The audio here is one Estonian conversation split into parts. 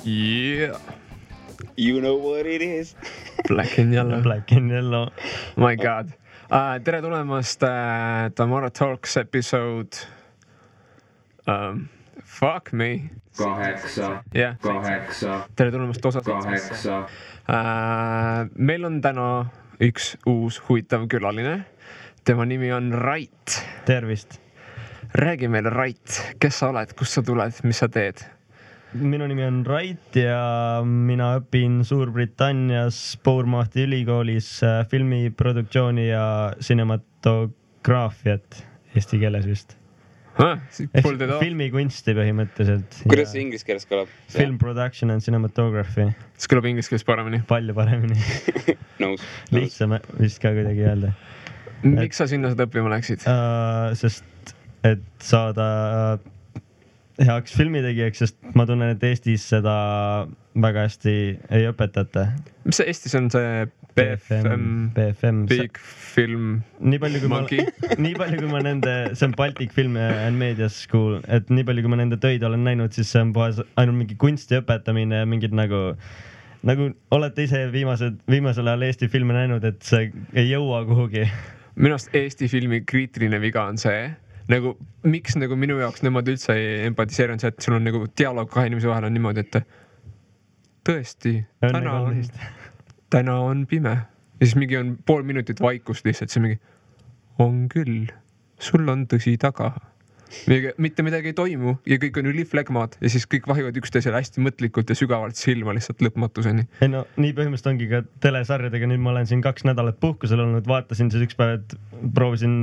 Yeah. You know what it is. Black and yellow. Black and yellow. My god. Tere tulemast Tamara Talks episode. Fuck me. 8. Yeah. 8. Tere tulemast osa 8. Meil on täna üks uus huvitav külaline. Tema nimi on Rait. Tervist. Räägi meile, Rait, kes sa oled, kust sa tuled, mis sa teed? Minu nimi on Rait ja mina õpin Suurbritannias Bournemouthi ülikoolis filmiproduktsiooni ja cinematograafiat eesti keeles vist. Filmikunsti põhimõtteliselt. Kuidas see inglise keeles kõlab? Film production and cinematography. See kõlab inglise keeles paremini. Palju paremini. Nõus. Lihtsam vist ka kuidagi öelda. Miks sa sinna seda õppima läksid? Sest et saada heaks filmitegijaks, sest ma tunnen, et Eestis seda väga hästi ei õpetata. Mis see Eestis on see BFM. Big Film Monkey? Nii palju kui ma nende, see on Baltic Film and Media School, et nii palju kui ma nende töid olen näinud, siis see on ainult mingi kunsti õpetamine ja mingid nagu olete ise viimasel ajal Eesti filme näinud, et see ei jõua kuhugi. Minu arust Eesti filmi kriitiline viga on see, nagu miks nagu minu jaoks nemad üldse ei empatiseeri on see, et sul on nagu dialoog kahe inimese vahel on niimoodi, et tõesti, täna on pime. Ja siis mingi on pool minutit vaikust lihtsalt, see mingi on küll, sul on tõsi taga. Mitte midagi ei toimu ja kõik on üliflegmad ja siis kõik vahivad üksteisele hästi mõtlikult ja sügavalt silma lihtsalt lõpmatuseni. Ei no, nii põhimõtteliselt ongi ka telesarjadega, nüüd ma olen siin 2 nädalat puhkusel olnud, vaatasin siis üks päev, et proovisin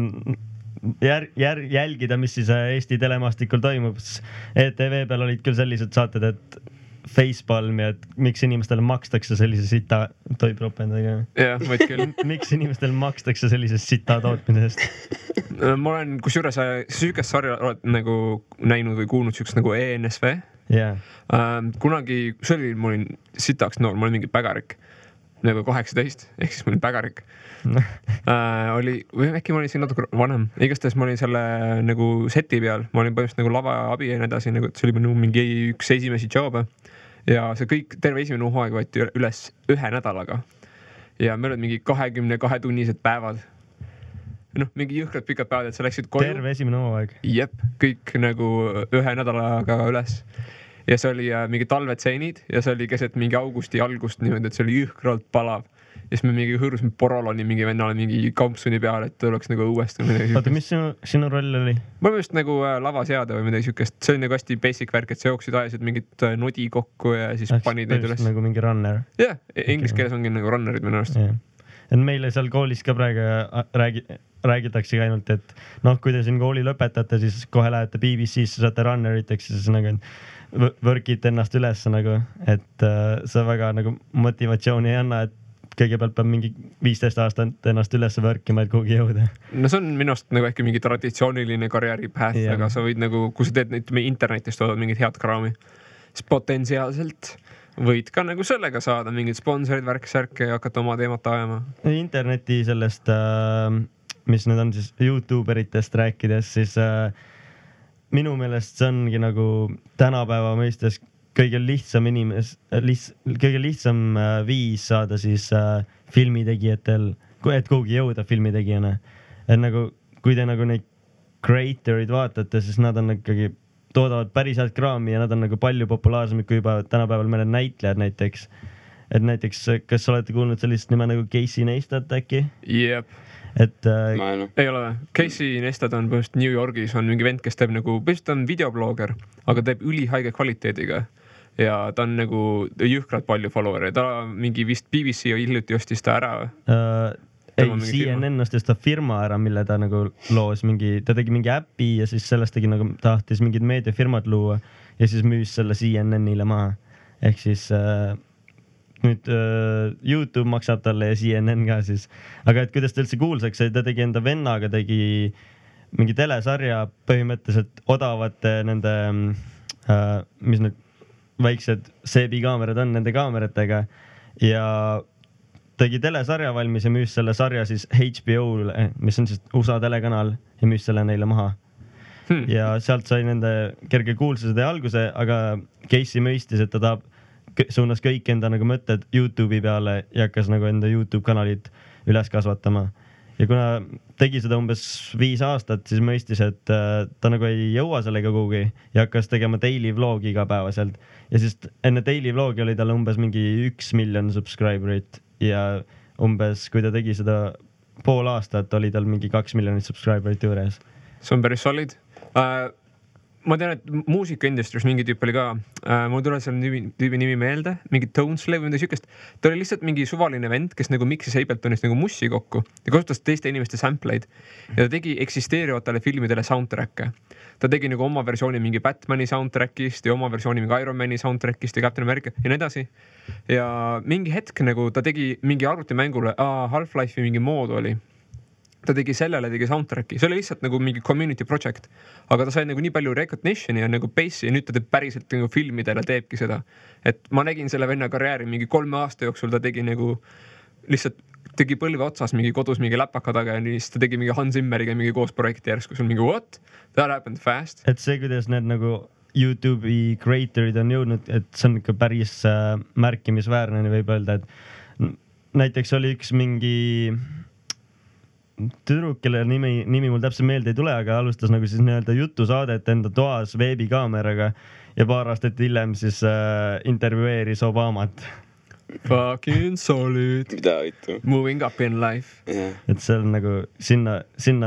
jälgida, mis siis Eesti telemaastikul toimub. ETV peal olid küll sellised saated, et facepalm ja et miks inimestele makstakse sellise sita toipropendaga. Jah, võid küll. Miks inimestele makstakse sellisest sita tootmisest? Ma olen kusjuures süükest sarja oled nagu näinud või kuulnud süükest nagu ENSV. Yeah. Kunagi, ma olin sitaks noor, ma olin mingi pägarik. Nagu 18, ehk siis ma olin pägarik. Või äkki ma olin siin natuke vanem. Igastahes ma olin selle nagu seti peal. Ma olin põhimõtteliselt nagu lava abi ja nii edasi, nagu, et see oli mingi üks esimesi job'e. Ja see kõik, terve esimene hooaeg võeti üles 1 nädalaga. Ja meil olid mingi 22 tunnised päevad. Mingi jõhkrad pikad päevad, et sa läksid koju. Terve esimene hooaeg? Jep, kõik nagu 1 nädalaga üles. Ja see oli mingi talvetseenid ja see oli keset mingi augusti algust niimoodi, et see oli jõhkralt palav. Ja siis me mingi hõõrusime Poroloni mingi vennale mingi kampsuni peale, et oleks nagu õuesti. Oota, mis sinu roll oli? Ma just nagu lavaseade või midagi sükest. See oli nagu hästi basic värk, et sa jooksid ajasid mingit nodi kokku ja siis panid neid üles. Nagu mingi runner? Jah, inglise keeles ongi nagu runnerid minu arust. Et meile seal koolis ka praegu räägitakse ainult, et kui te siin kooli lõpetate, siis kohe lähete BBC-sse, saate runneriteks ja siis nagu võrkite ennast üles nagu, et see väga nagu motivatsiooni ei anna, et kõigepealt peab mingi 15 aastat ennast üles võrkima, et kuhugi jõuda. No see on minust nagu äkki mingi traditsiooniline karjääripäht, aga sa võid nagu, kui sa teed internetist toodad mingit head kraami, siis potentsiaalselt võid ka nagu sellega saada mingid sponsorid, värk-särke ja hakata oma teemat ajama. Interneti sellest, mis need on siis YouTuberitest rääkides, siis minu meelest see ongi nagu tänapäeva mõistes kõige lihtsam viis saada siis filmitegijatel, et kuhugi jõuda filmitegijana. Et nagu, kui te nagu neid creatorid vaatate, siis nad on ikkagi toodavad päris head kraami ja nad on nagu palju populaarsemad kui juba tänapäeval mõned näitlejad näiteks. Et näiteks, kas olete kuulnud sellist nime nagu Casey Neistat äkki? Jep. Et ei ole. Casey Neistat on põhimõtteliselt New Yorgis, on mingi vend, kes teeb nagu, põhimõtteliselt on videoblogger, aga teeb ülihaige kvaliteediga ja ta on nagu jõhkralt palju follower'e. Ta mingi vist BBC hiljuti ostis ta ära. Ei, CNN ostis ta firma ära, mille ta nagu loos ta tegi mingi äpi ja siis sellest tegi nagu tahtis mingid meediafirmad luua ja siis müüs selle CNN-ile maha. Ehk siis nüüd YouTube maksab talle ja CNN ka siis. Aga et kuidas ta üldse kuulsaks, ta tegi enda vennaga, tegi mingi telesarja põhimõtteliselt odavate nende, mis need väiksed seebikaamerad on nende kaameratega ja tegi telesarja valmis ja müüs selle sarja siis HBO-le, mis on siis USA telekanal ja müüs selle neile maha. Ja sealt sai nende kerge kuulsused ja alguse, aga Casey mõistis, et ta tahab suunas kõik enda nagu mõtted Youtube'i peale ja hakkas nagu enda Youtube kanalit üles kasvatama. Ja kuna tegi seda umbes 5 aastat, siis mõistis, et ta nagu ei jõua sellega kuhugi ja hakkas tegema daily vlogi igapäevaselt. Ja siis enne daily vlogi oli tal umbes mingi 1 miljon subscriberit ja umbes, kui ta tegi seda pool aastat, oli tal mingi 2 miljonit subscriberit juures. See on päris solid. Ma tean, et muusikaindustris mingi tüüp oli ka, mul tuleb selle tüübi nimi meelde, mingi Toneslave või midagi sükest. Ta oli lihtsalt mingi suvaline vend, kes nagu mixis Abletonist nagu mussi kokku ja kasutas teiste inimeste sampleid. Ja ta tegi eksisteerivatele filmidele soundtrack'e. Ta tegi nagu oma versiooni mingi Batmani soundtrack'ist ja oma versiooni mingi Iron Mani soundtrack'ist ja Captain America ja nii edasi. Ja mingi hetk nagu ta tegi mingi arvutimängule, Half-Life'i mingi mood oli. Ta tegi sellele, tegi soundtrack'i, see oli lihtsalt nagu mingi community project, aga ta sai nagu nii palju recognition'i ja nagu base'i ja nüüd ta teeb päriselt nagu filmidele teebki seda. Et ma nägin selle venna karjääri mingi 3 aasta jooksul, ta tegi nagu lihtsalt tegi põlve otsas mingi kodus mingi läpaka taga ja siis ta tegi mingi Hans Zimmeriga mingi koos projekti järsku, sul mingi what? That happened fast. Et see, kuidas need nagu YouTube'i creatorid on jõudnud, et see on ikka päris märkimisväärne, võib öelda, et näiteks oli üks mingi tüdruk, kelle nimi mul täpselt meelde ei tule, aga alustas nagu siis nii-öelda jutusaadet enda toas veebikaameraga ja paar aastat hiljem siis intervjueeris Obamat. Fucking solid. Mida võitu? Moving up in life. Yeah. Et see on nagu, sinna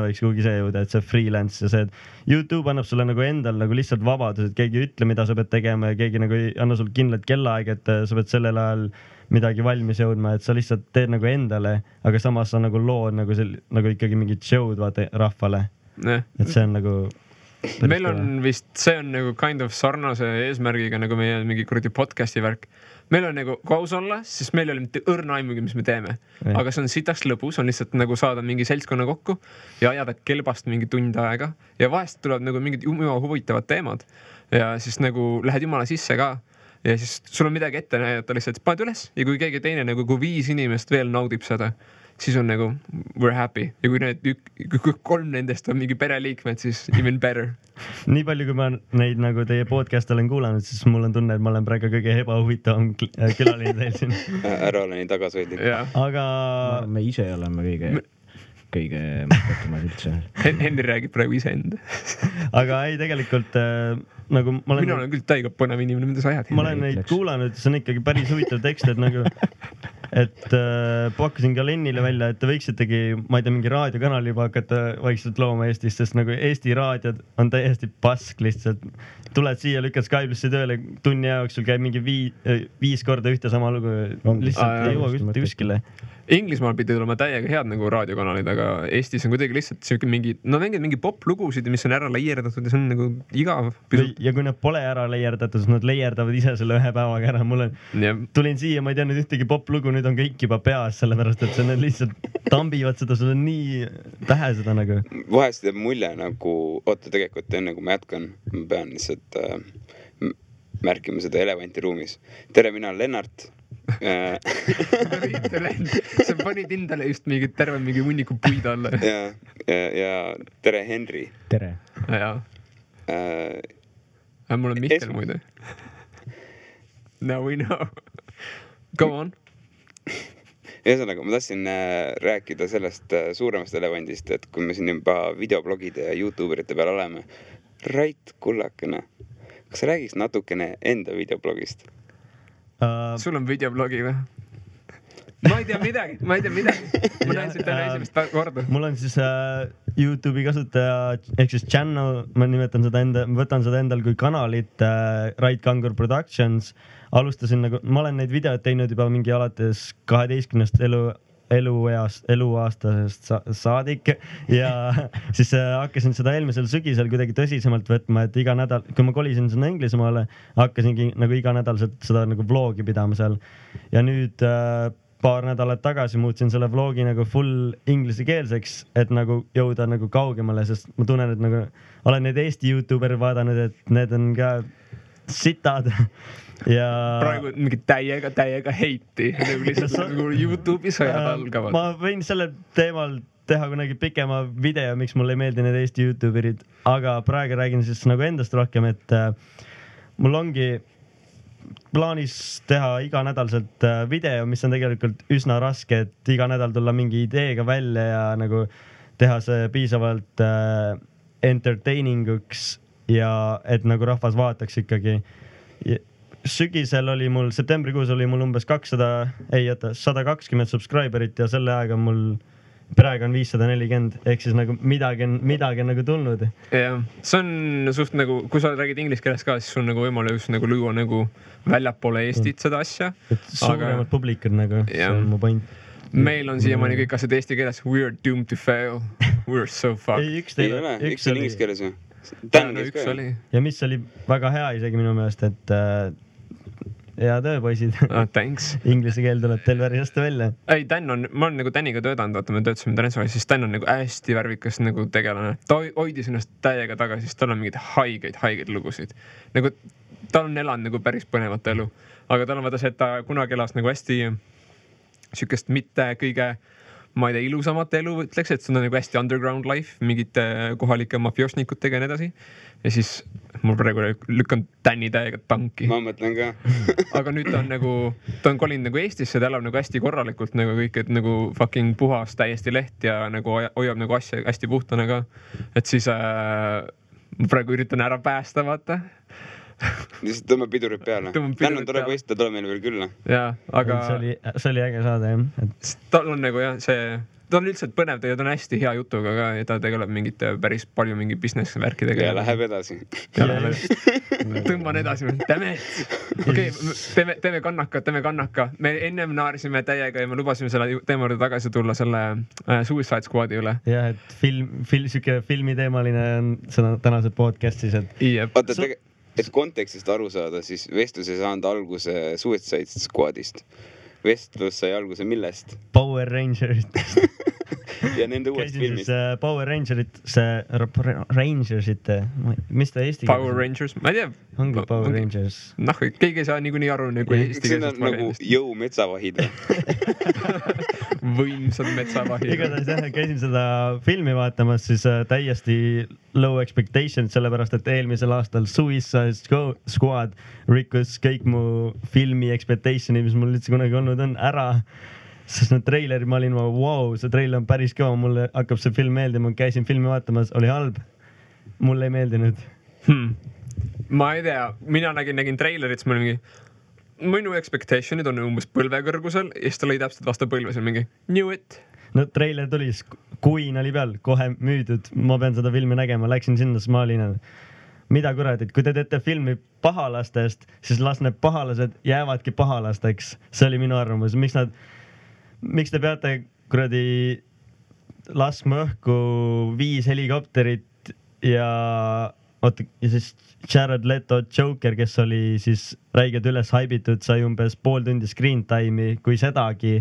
võiks kuhugi see jõuda, et see freelance ja see, et YouTube annab sulle nagu endal nagu lihtsalt vabadus, et keegi ei ütle, mida sa pead tegema ja keegi nagu ei anna sul kindlat kellaaeg, et sa pead sellel ajal midagi valmis jõudma, et sa lihtsalt teed nagu endale, aga samas sa nagu lood nagu ikkagi mingit show'd vaata rahvale. Et see on nagu meil on vist, see on nagu kind of sarnase eesmärgiga nagu meie mingi kuradi podcasti värk. Meil on nagu, kui aus olla, siis meil oli mitte õrna aimugi, mis me teeme. Aga see on sitaks lõbus, on lihtsalt nagu saada mingi seltskonna kokku ja ajada kelbast mingi tund aega. Ja vahest tuleb nagu mingid huvitavad teemad. Ja siis nagu lähed jumala sisse ka. Ja siis sul on midagi ette näidata lihtsalt, paned üles ja kui keegi teine nagu, kui 5 inimest veel naudib seda, siis on nagu we're happy. Ja kui need 3 nendest on mingi pereliikmed, siis even better. Nii palju, kui ma neid nagu teie podcast olen kuulanud, siis mul on tunne, et ma olen praegu kõige ebahuvitavam külaline teil siin. Ära ole nii tagasihoidlik. Aga me ise oleme kõige mõttetumad üldse. Henri räägib praegu ise enda. Aga ei, tegelikult nagu ma olen... Mina olen küll täiega põnev inimene, mida sa ajad. Ma olen neid kuulanud, see on ikkagi päris huvitav tekst, et nagu et pakkusin ka Lennile välja, et te võiksitegi, ma ei tea, mingi raadiokanali juba hakata vaikselt looma Eestis, sest nagu Eesti raadiod on täiesti pask lihtsalt. Tuled siia, lükkad Skype'isse tööle, tunni jooksul käib mingi 5 korda ühte sama lugu, lihtsalt ei jõua mitte kuskile. Inglismaal pidi tulema täiega head nagu raadiokanalid, aga Eestis on kuidagi lihtsalt siuke mingi, no mängid mingi pop-lugusid, mis on ära leierdatud ja see on nagu igav. Ja kui nad pole ära leierdatud, siis nad leierdavad ise selle 1 päevaga ära. Tulin siia, ma ei tea nüüd ühtegi pop-lugu, nüüd on kõik juba peas, sellepärast et need lihtsalt tambivad seda, sul on nii pähe seda nagu. Vahest teeb mulje nagu, oota tegelikult enne kui ma jätkan, ma pean lihtsalt märkima seda elevanti ruumis. Tere, mina olen Lennart. Sa panid endale just mingi terve mingi hunniku puid alla. Ja tere, Henri. Tere. Mul on Mihkel muide. Now we know. Go on. Ühesõnaga, ma tahtsin rääkida sellest suuremast elevandist, et kui me siin juba videoblogide ja YouTuberite peal oleme. Rait kullakene, kas sa räägiks natukene enda videoblogist? Sul on videoblogi või? Ma ei tea midagi. Ma näin siit täna esimest korda. Mul on siis YouTube'i kasutaja, ehk siis channel, ma võtan seda endal kui kanalit Rait Kangur Productions. Alustasin nagu, ma olen neid videoid teinud juba mingi alates 12 eluaastasest saadik ja siis hakkasin seda eelmisel sügisel kuidagi tõsisemalt võtma, et iga nädal, kui ma kolisin sinna Inglismaale, hakkasingi nagu iga nädal seda nagu vlogi pidama seal ja nüüd paar nädalat tagasi muutsin selle vlogi nagu full ingliskeelseks, et nagu jõuda nagu kaugemale, sest ma tunnen, et nagu olen neid Eesti YouTuberi vaadanud, et need on ka sitad ja praegu mingi täiega heiti nagu lihtsalt nagu YouTube'i sõjad algavad. Ma võin selle teemal teha kunagi pikema video, miks mulle ei meeldi need Eesti YouTuberid, aga praegu räägin siis nagu endast rohkem, et mul ongi plaanis teha iganädalselt video, mis on tegelikult üsna raske, et iga nädal tulla mingi ideega välja ja nagu teha see piisavalt entertaining uks ja et nagu rahvas vaataks ikkagi. Sügisel oli mul, septembrikuus oli mul umbes 120 subscriberit ja selle aega mul praegu on 540, ehk siis nagu midagi on nagu tulnud. jah, see on suht nagu, kui sa räägid inglise keeles ka, siis sul nagu võimalus nagu luua nagu väljapoole Eestit seda asja. Suuremad publikud nagu, see on mu point. Meil on siiamaani kõik asjad eesti keeles. We are doomed to fail. We are so fucked. Ei, ei ole, üks oli inglise keeles ju. Tännes ka ju. Ja mis oli väga hea isegi minu meelest, et hea töö, poisid. Thanks. Inglise keel tuleb teil päris hästi välja. Ei, Dan on, ma olen nagu Daniga töötanud, vaata me töötasime Transferis, siis Dan on nagu hästi värvikas nagu tegelane. Ta hoidis ennast täiega tagasi, siis tal on mingid haigeid lugusid. Nagu tal on elanud nagu päris põnevat elu, aga tal on vaata see, et ta kunagi elas nagu hästi sükest mitte kõige, ma ei tea, ilusamat elu, ütleks, et see on nagu hästi underground life, mingite kohalike mafioosnikutega ja nii edasi. Ja siis mul praegu lükkan Tänni täiega tanki. Ma mõtlen ka. Aga nüüd ta on nagu, ta on kolinud nagu Eestisse, ta elab nagu hästi korralikult nagu kõik, et nagu fucking puhas täiesti leht ja nagu hoiab nagu asja hästi puhtana ka. Et siis ma praegu üritan ära päästa, vaata. Lihtsalt tõmbab pidurid peale. Tänn on tore poist, ta tuleb meile veel külla. Jaa, aga see oli äge saada, jah. Tal on nagu jah, see, ta on üldselt põnev, ta on hästi hea jutuga ka ja ta tegeleb mingite päris palju mingi business värkidega. Ja läheb edasi. Tõmban edasi. Okei, teeme kannaka. Me ennem naarisime täiega ja me lubasime selle teema juurde tagasi tulla selle Suicide Squadi üle. Jah, et filmiteemaline on seda tänase podcastis, et et kontekstist aru saada, siis vestlus ei saanud alguse Suicide Squadist. Vestlus sai alguse millest? Power Rangersitest. Ja nende uuest filmist. Power Rangersite, mis ta eesti keeles? Power Rangers, ma ei tea. Ongi Power Rangers. Noh, keegi ei saa niikuinii aru nagu eesti keelest. See on nagu jõu metsavahid. Võimsad metsavahid. Igatahes jah, käisin seda filmi vaatamas, siis täiesti low expectations, sellepärast et eelmisel aastal Suicide Squad rikkus kõik mu filmi expectationi, mis mul üldse kunagi olnud on, ära. Sest need treilerid, ma olin, wow, see treiler on päris kõva, mulle hakkab see film meeldima, käisin filmi vaatamas, oli halb. Mulle ei meeldinud. Ma ei tea, mina nägin treilerit, siis ma olin mingi, minu expectationid on umbes põlvekõrgusel ja siis ta lõi täpselt vastu põlve, see on mingi knew it. No treiler tuli, Queen oli peal, kohe müüdud, ma pean seda filmi nägema, läksin sinna, siis ma olin, mida kuradit, kui te teete filmi pahalastest, siis las need pahalased jäävadki pahalasteks. See oli minu arvamus. Miks te peate kuradi laskma õhku 5 helikopterit ja siis Jared Leto Joker, kes oli siis räiged üles haibitud, sai umbes pool tundi screen time'i, kui sedagi.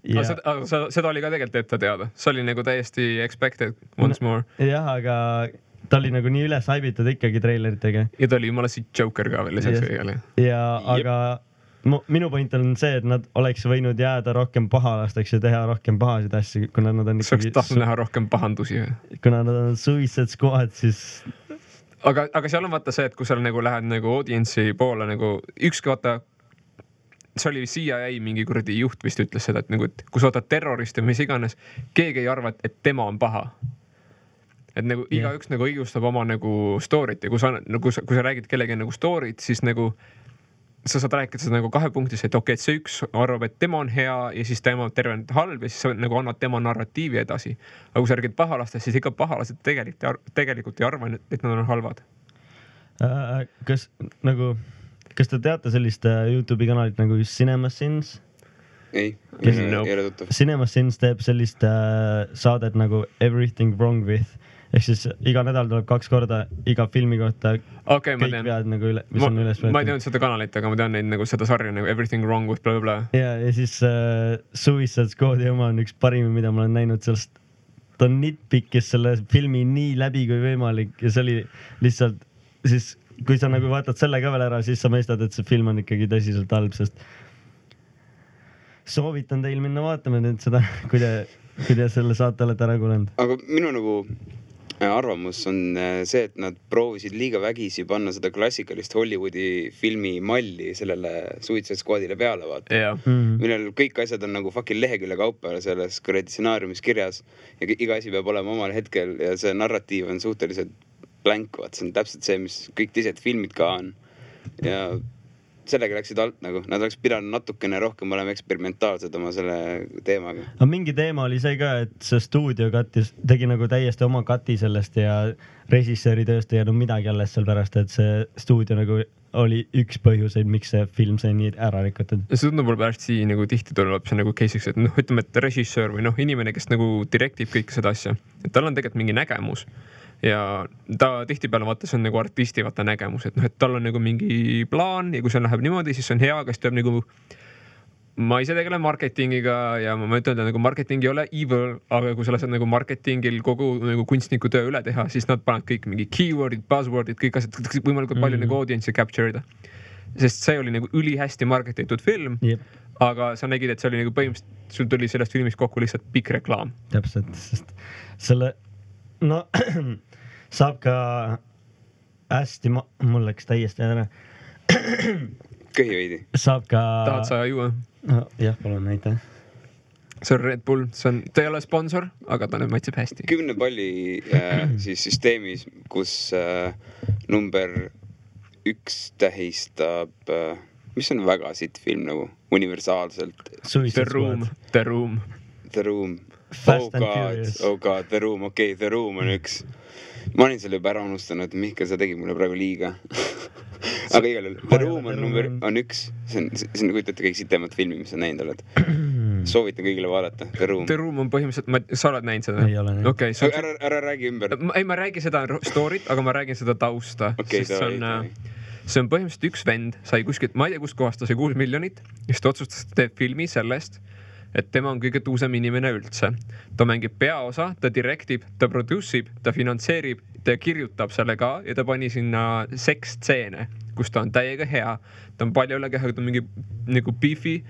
Ja... Seda oli ka tegelikult ette teada. See oli nagu täiesti expected once more. Jah, aga ta oli nagu nii üles haibitud ikkagi treileritega. Ja ta oli jumala siit Joker ka veel lisaks kõigele. Ja aga minu point on see, et nad oleks võinud jääda rohkem pahalasteks ja teha rohkem pahasid asju, kuna nad on ikkagi... Sa oleks tahtnud näha rohkem pahandusi. Kuna nad on Suicide Squad, siis... Aga seal on vaata see, et kui sa nagu lähed nagu audience'i poole nagu ükski vaata, see oli CIA mingi kuradi juht vist ütles seda, et nagu, et kui sa võtad terroristi või mis iganes, keegi ei arva, et tema on paha. Et nagu igaüks nagu õigustab oma nagu story't ja kui sa räägid kellegi nagu story't, siis nagu sa saad rääkida seda nagu 2 punktis, et okei, et see üks arvab, et tema on hea ja siis tema on terve halb ja siis sa nagu annad tema narratiivi edasi. Aga kui sa räägid pahalastest, siis ikka pahalased tegelikult ei arva, et nad on halvad. Kas te teate sellist YouTube'i kanalit nagu CinemaSins? Ei ole tuttav. CinemaSins teeb sellist saadet nagu Everything Wrong With. Ehk siis iga nädal tuleb 2 korda iga filmi kohta kõik vead nagu mis on üles võetud. Ma ei teadnud seda kanalit, aga ma tean neid nagu seda sarja nagu Everything Wrong With bla bla. Ja siis Suicide Squadi oma on üks parimi, mida ma olen näinud sellest. Ta on nitpikkis selle filmi nii läbi kui võimalik ja see oli lihtsalt siis kui sa nagu vaatad selle ka veel ära, siis sa mõistad, et see film on ikkagi tõsiselt halb, sest soovitan teil minna vaatama nüüd seda, kui te selle saate olete ära kuulanud. Aga minu nagu arvamus on see, et nad proovisid liiga vägisi panna seda klassikalist Hollywoodi filmi malli sellele Suicide Squadile peale, vaata. Millel kõik asjad on nagu fucking lehekülje kaupa selles kuradi stsenaariumis kirjas ja iga asi peab olema omal hetkel ja see narratiiv on suhteliselt blank, vaata. See on täpselt see, mis kõik teised filmid ka on. Ja sellega läksid alt nagu, nad oleks pidanud natukene rohkem olema eksperimentaalsed oma selle teemaga. Aga mingi teema oli see ka, et see stuudio tegi nagu täiesti oma kati sellest ja režissööri tööst ei jäänud midagi alles seal pärast, et see stuudio nagu oli üks põhjuseid, miks see film sai nii ära rikutud. See tundub võib hästi nagu tihti tuleb see nagu case'iks, et ütleme, et režissöör või inimene, kes nagu direktib kõike seda asja, et tal on tegelikult mingi nägemus. Ja ta tihtipeale vaata, see on nagu artisti vaata nägemus, et et tal on nagu mingi plaan ja kui see läheb niimoodi, siis see on hea, kas tuleb nagu ma ise tegelen marketingiga ja ma ütlen, et nagu marketing ei ole evil, aga kui sa lased nagu marketingil kogu nagu kunstniku töö üle teha, siis nad panevad kõik mingi keywordid, buzzwordid, kõik asjad võimalikult palju nagu audience'i capture ida. Sest see oli nagu ülihästi marketitud film, aga sa nägid, et see oli nagu põhimõtteliselt, sul tuli sellest filmist kokku lihtsalt pikk reklaam. Täpselt, sest selle saab ka hästi, mul läks täiesti ära. Köhi veidi. Saab ka... Tahad sa juua? No, jah, palun, näita. See on Red Bull, ta ei ole sponsor, aga ta nüüd maitseb hästi. 10 palli siis süsteemis, kus number 1 tähistab, mis on väga sitt film nagu universaalselt. The Room. Fast and Furious. Oh god, The Room, okei, The Room on 1. Ma olin selle juba ära unustanud, Mihkel, sa tegid mulle praegu liiga. Aga igal juhul, The Room on 1. See on kujutate kõik sitemat filmi, mis sa näinud oled. Soovitan kõigile vaadata, The Room. The Room on põhimõtteliselt, sa oled näinud seda? Ei ole näinud. Okay, ära räägi ümber. Ei, ma räägin seda story't, aga ma räägin seda tausta. Okay, see on põhimõtteliselt üks vend, sai kuskilt, ma ei tea, kust kohast ta sai 6 miljonit, siis ta otsustas, et teeb filmi sellest, et tema on kõige tuusem inimene üldse. Ta mängib peaosa, ta direktib, ta produce'ib, ta finantseerib, ta kirjutab selle ka ja ta pani sinna seksstseene, kus ta on täiega hea. Ta on palju üle keha, ta on mingi nagu beefy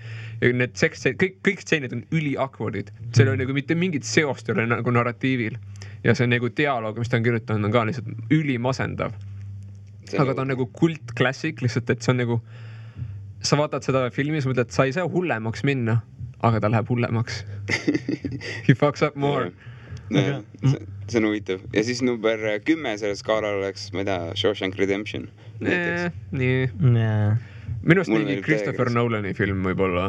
ja need kõik stseenid on üli-awkwardid. Seal on nagu mitte mingit seost üle nagu narratiivil ja see nagu dialoog, mis ta on kirjutanud, on ka lihtsalt ülimasendav. Aga ta on nagu kult klassik, lihtsalt, et see on nagu sa vaatad seda filmi, sa mõtled, et sa ei saa hullemaks minna, aga ta läheb hullemaks. He fucks up more. See on huvitav. Ja siis number 10 selle skaalal oleks, ma ei tea, Shawshank Redemption. Nii. Minust mingi Christopher Nolani film võib-olla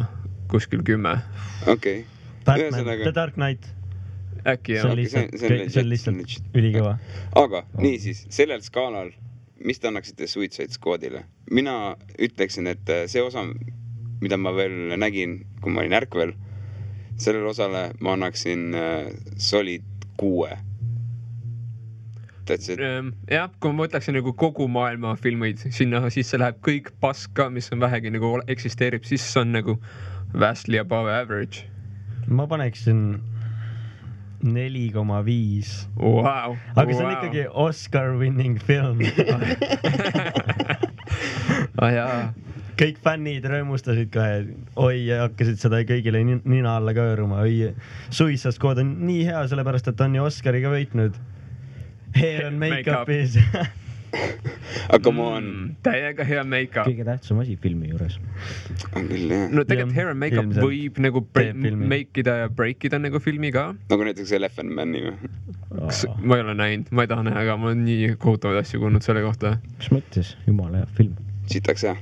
kuskil 10. Okei. Batman, The Dark Knight. Äkki jah. See on lihtsalt ülikõva. Aga niisiis, sellel skaalal, mis te annaksite Suicide Squadile? Mina ütleksin, et see osa, mida ma veel nägin, kui ma olin ärkvel, sellele osale ma annaksin solid 6. Jah, kui ma mõtleksin nagu kogu maailma filmeid, sinna sisse läheb kõik paska, mis on vähegi nagu eksisteerib, siis on nagu vastly above average. Ma paneksin 4,5. Wow. Aga see on ikkagi Oscar winning film. Jaa. Kõik fännid rõõmustasid ka, oi, hakkasid seda kõigile nina alla kööruma. Oi, Suicide Squad on nii hea, sellepärast, et on ju Oscariga võitnud. Hair and make-up'is. Aga ma on... Täiega hea make-up. Kõige tähtsam asi filmi juures. On küll, jah. No tegelikult hair and make-up võib nagu make-ida ja break-ida nagu filmi ka. Nagu näiteks Elephant Man'i või? Ma ei ole näinud, ma ei taha näha, aga ma olen nii kohutavaid asju kuulnud selle kohta. Mis mõttes? Jumala hea film. Sitaks hea.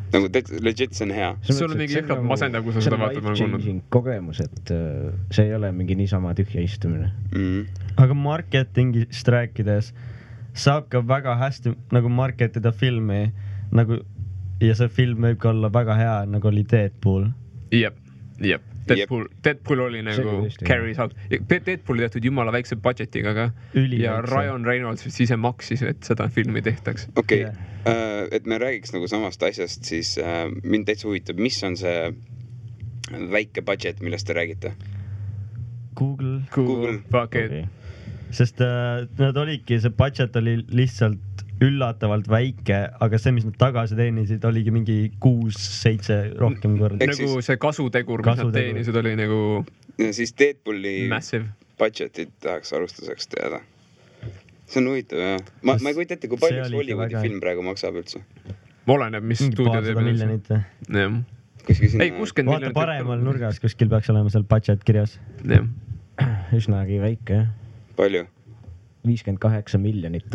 Nagu legit see on hea. Sul on mingi jõhkralt masendav, kui sa seda vaatad, ma olen kuulnud. Kogemus, et see ei ole mingi niisama tühja istumine. Aga marketingist rääkides saab ka väga hästi nagu marketida filmi nagu, ja see film võib ka olla väga hea, nagu oli Deadpool. Jep. Deadpool oli nagu carries out. Deadpooli tehtud jumala väikse budgetiga ka. Ja Ryan Reynolds vist ise maksis, et seda filmi tehtaks. Okei, et me räägiks nagu samast asjast, siis mind täitsa huvitab, mis on see väike budget, millest te räägite? Google. Fuck it. Sest nad olidki, see budget oli lihtsalt üllatavalt väike, aga see, mis nad tagasi teenisid, oligi mingi 6-7 rohkem korda. Nagu see kasutegur, mis nad teenisid, oli nagu ja siis Deadpooli massive budgetit tahaks alustuseks teada. see on huvitav jah. Ma ei kujuta ette, kui palju üks oli ikka Hollywoodi väga- film praegu maksab üldse. oleneb, mis mingi stuudio paarsada teeb. miljonit või? jah. Kuskil sinna. ei, 60 vaata miljonit. paremal nurgas kuskil peaks olema seal budget kirjas. jah. üsnagi väike jah. Palju? $58 miljonit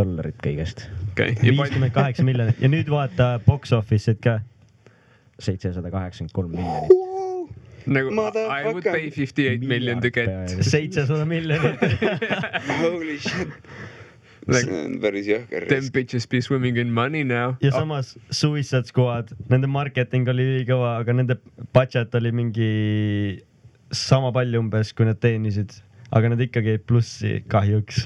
kõigest. okei. 58 miljonit ja nüüd vaata box office'id ka. 783 miljonit. nagu I would pay 58 million to get. 700 miljonit. Holy shit. see on päris jõhker Them risk. bitches be swimming in money now. ja samas Suicide Squad, nende marketing oli ülikõva, aga nende budget oli mingi sama palju umbes, kui nad teenisid, aga nad ikkagi jäid plussi kahjuks.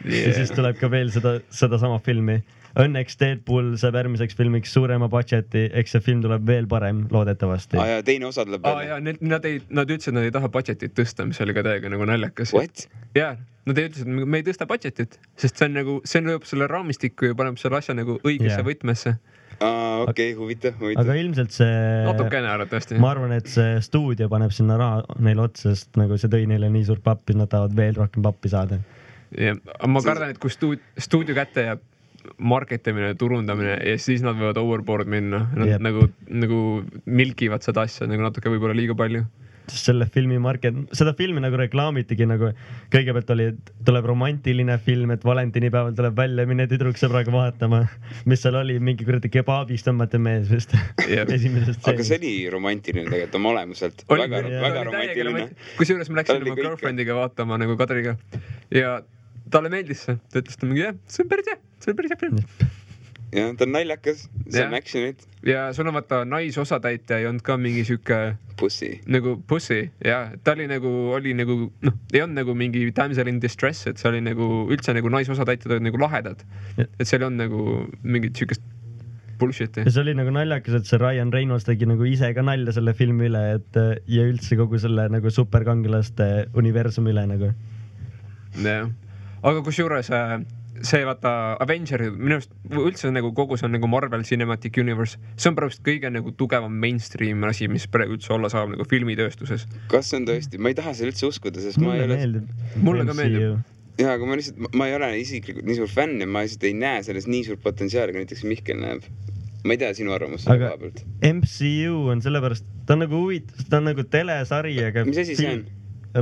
Ja siis tuleb ka veel sedasama filmi. Õnneks Deadpool saab järgmiseks filmiks suurema budgeti, eks see film tuleb veel parem, loodetavasti. ja teine osa tuleb ja nad ütlesid, et nad ei taha budgetit tõsta, mis oli ka täiega nagu naljakas. What? jaa, nad ütlesid, et me ei tõsta budgetit, sest see on nagu, see lööb selle raamistikku ja paneb selle asja nagu õigesse võtmesse. Okei, huvitav. Aga ilmselt see... natukene arvatavasti. Ma arvan, et see stuudio paneb sinna raha neile otsa, sest nagu see tõi neile nii suurt pappi, nad tahavad veel rohkem pappi saada. Ja, ma kardan, et kui stuudio kätte jääb marketimine, turundamine ja siis nad võivad overboard minna. Nad nagu milkivad seda asja nagu natuke võib-olla liiga palju. Selle filmi seda filmi nagu reklaamitigi nagu kõigepealt oli, et tuleb romantiline film, et valentinipäeval tuleb välja, mine tüdruksõbraga vaatama, mis seal oli, mingi kuradi kebaabist tõmmati mees vist esimesest stseenist. Aga see oli romantiline tegelikult oma olemuselt. Väga romantiline. Kusjuures ma läksin oma girlfriendiga vaatama nagu Kadriga ja talle meeldis see. Ta ütles ta mingi, see on päris hea film. jah, ta on naljakas, see on actionit. Ja sul on vaata naisosatäitja ei olnud ka mingi siuke Pussy. Nagu pussy, jah. Ta oli nagu, ei olnud nagu mingi damsel in distress, et see oli nagu üldse nagu naisosatäitjad olid nagu lahedad. Et seal ei olnud nagu mingit siukest bullshit'i. Ja see oli nagu naljakas, et see Ryan Reynolds tegi nagu ise ka nalja selle filmi üle, et ja üldse kogu selle nagu superkangelaste universumi üle nagu. jah. Aga kusjuures see vaata Avengeri, minu arust üldse nagu kogu see on nagu Marvel Cinematic Universe, see on praegu kõige nagu tugevam mainstream asi, mis praegu üldse olla saab nagu filmitööstuses. Kas see on tõesti? Ma ei taha seda üldse uskuda, sest ma ei ole... Mulle ka meeldib. Jaa, aga ma ei ole isiklikult nii suur fänn ja ma lihtsalt ei näe selles nii suur potentsiaali, kui näiteks Mihkel näeb. Ma ei tea sinu arvamust selle koha pealt. MCU on sellepärast, ta on nagu ta on nagu telesari, aga... Mis asi see on?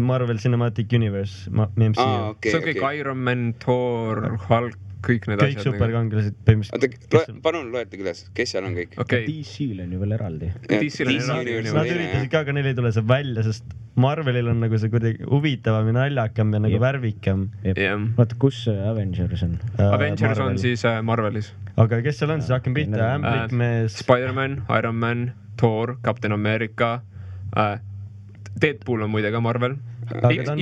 Marvel Cinematic Universe, MCU. See on kõik Iron Man, Thor, Hulk, kõik need asjad. Kõik superkangelased põhimõtteliselt. Palun loete küles, kes seal on kõik? DC-l on ju veel eraldi. DC-l on eraldi. Nad üritasid ka, aga neil ei tule see välja, sest Marvelil on nagu see kuidagi huvitavam ja naljakam ja nagu värvikam. Vaata, kus Avengers on? Avengers on siis Marvelis. Aga kes seal on, siis hakkame pihta. Ämblikmees. Spider-Man, Iron Man, Thor, Captain America, Deadpool on muide ka Marvel.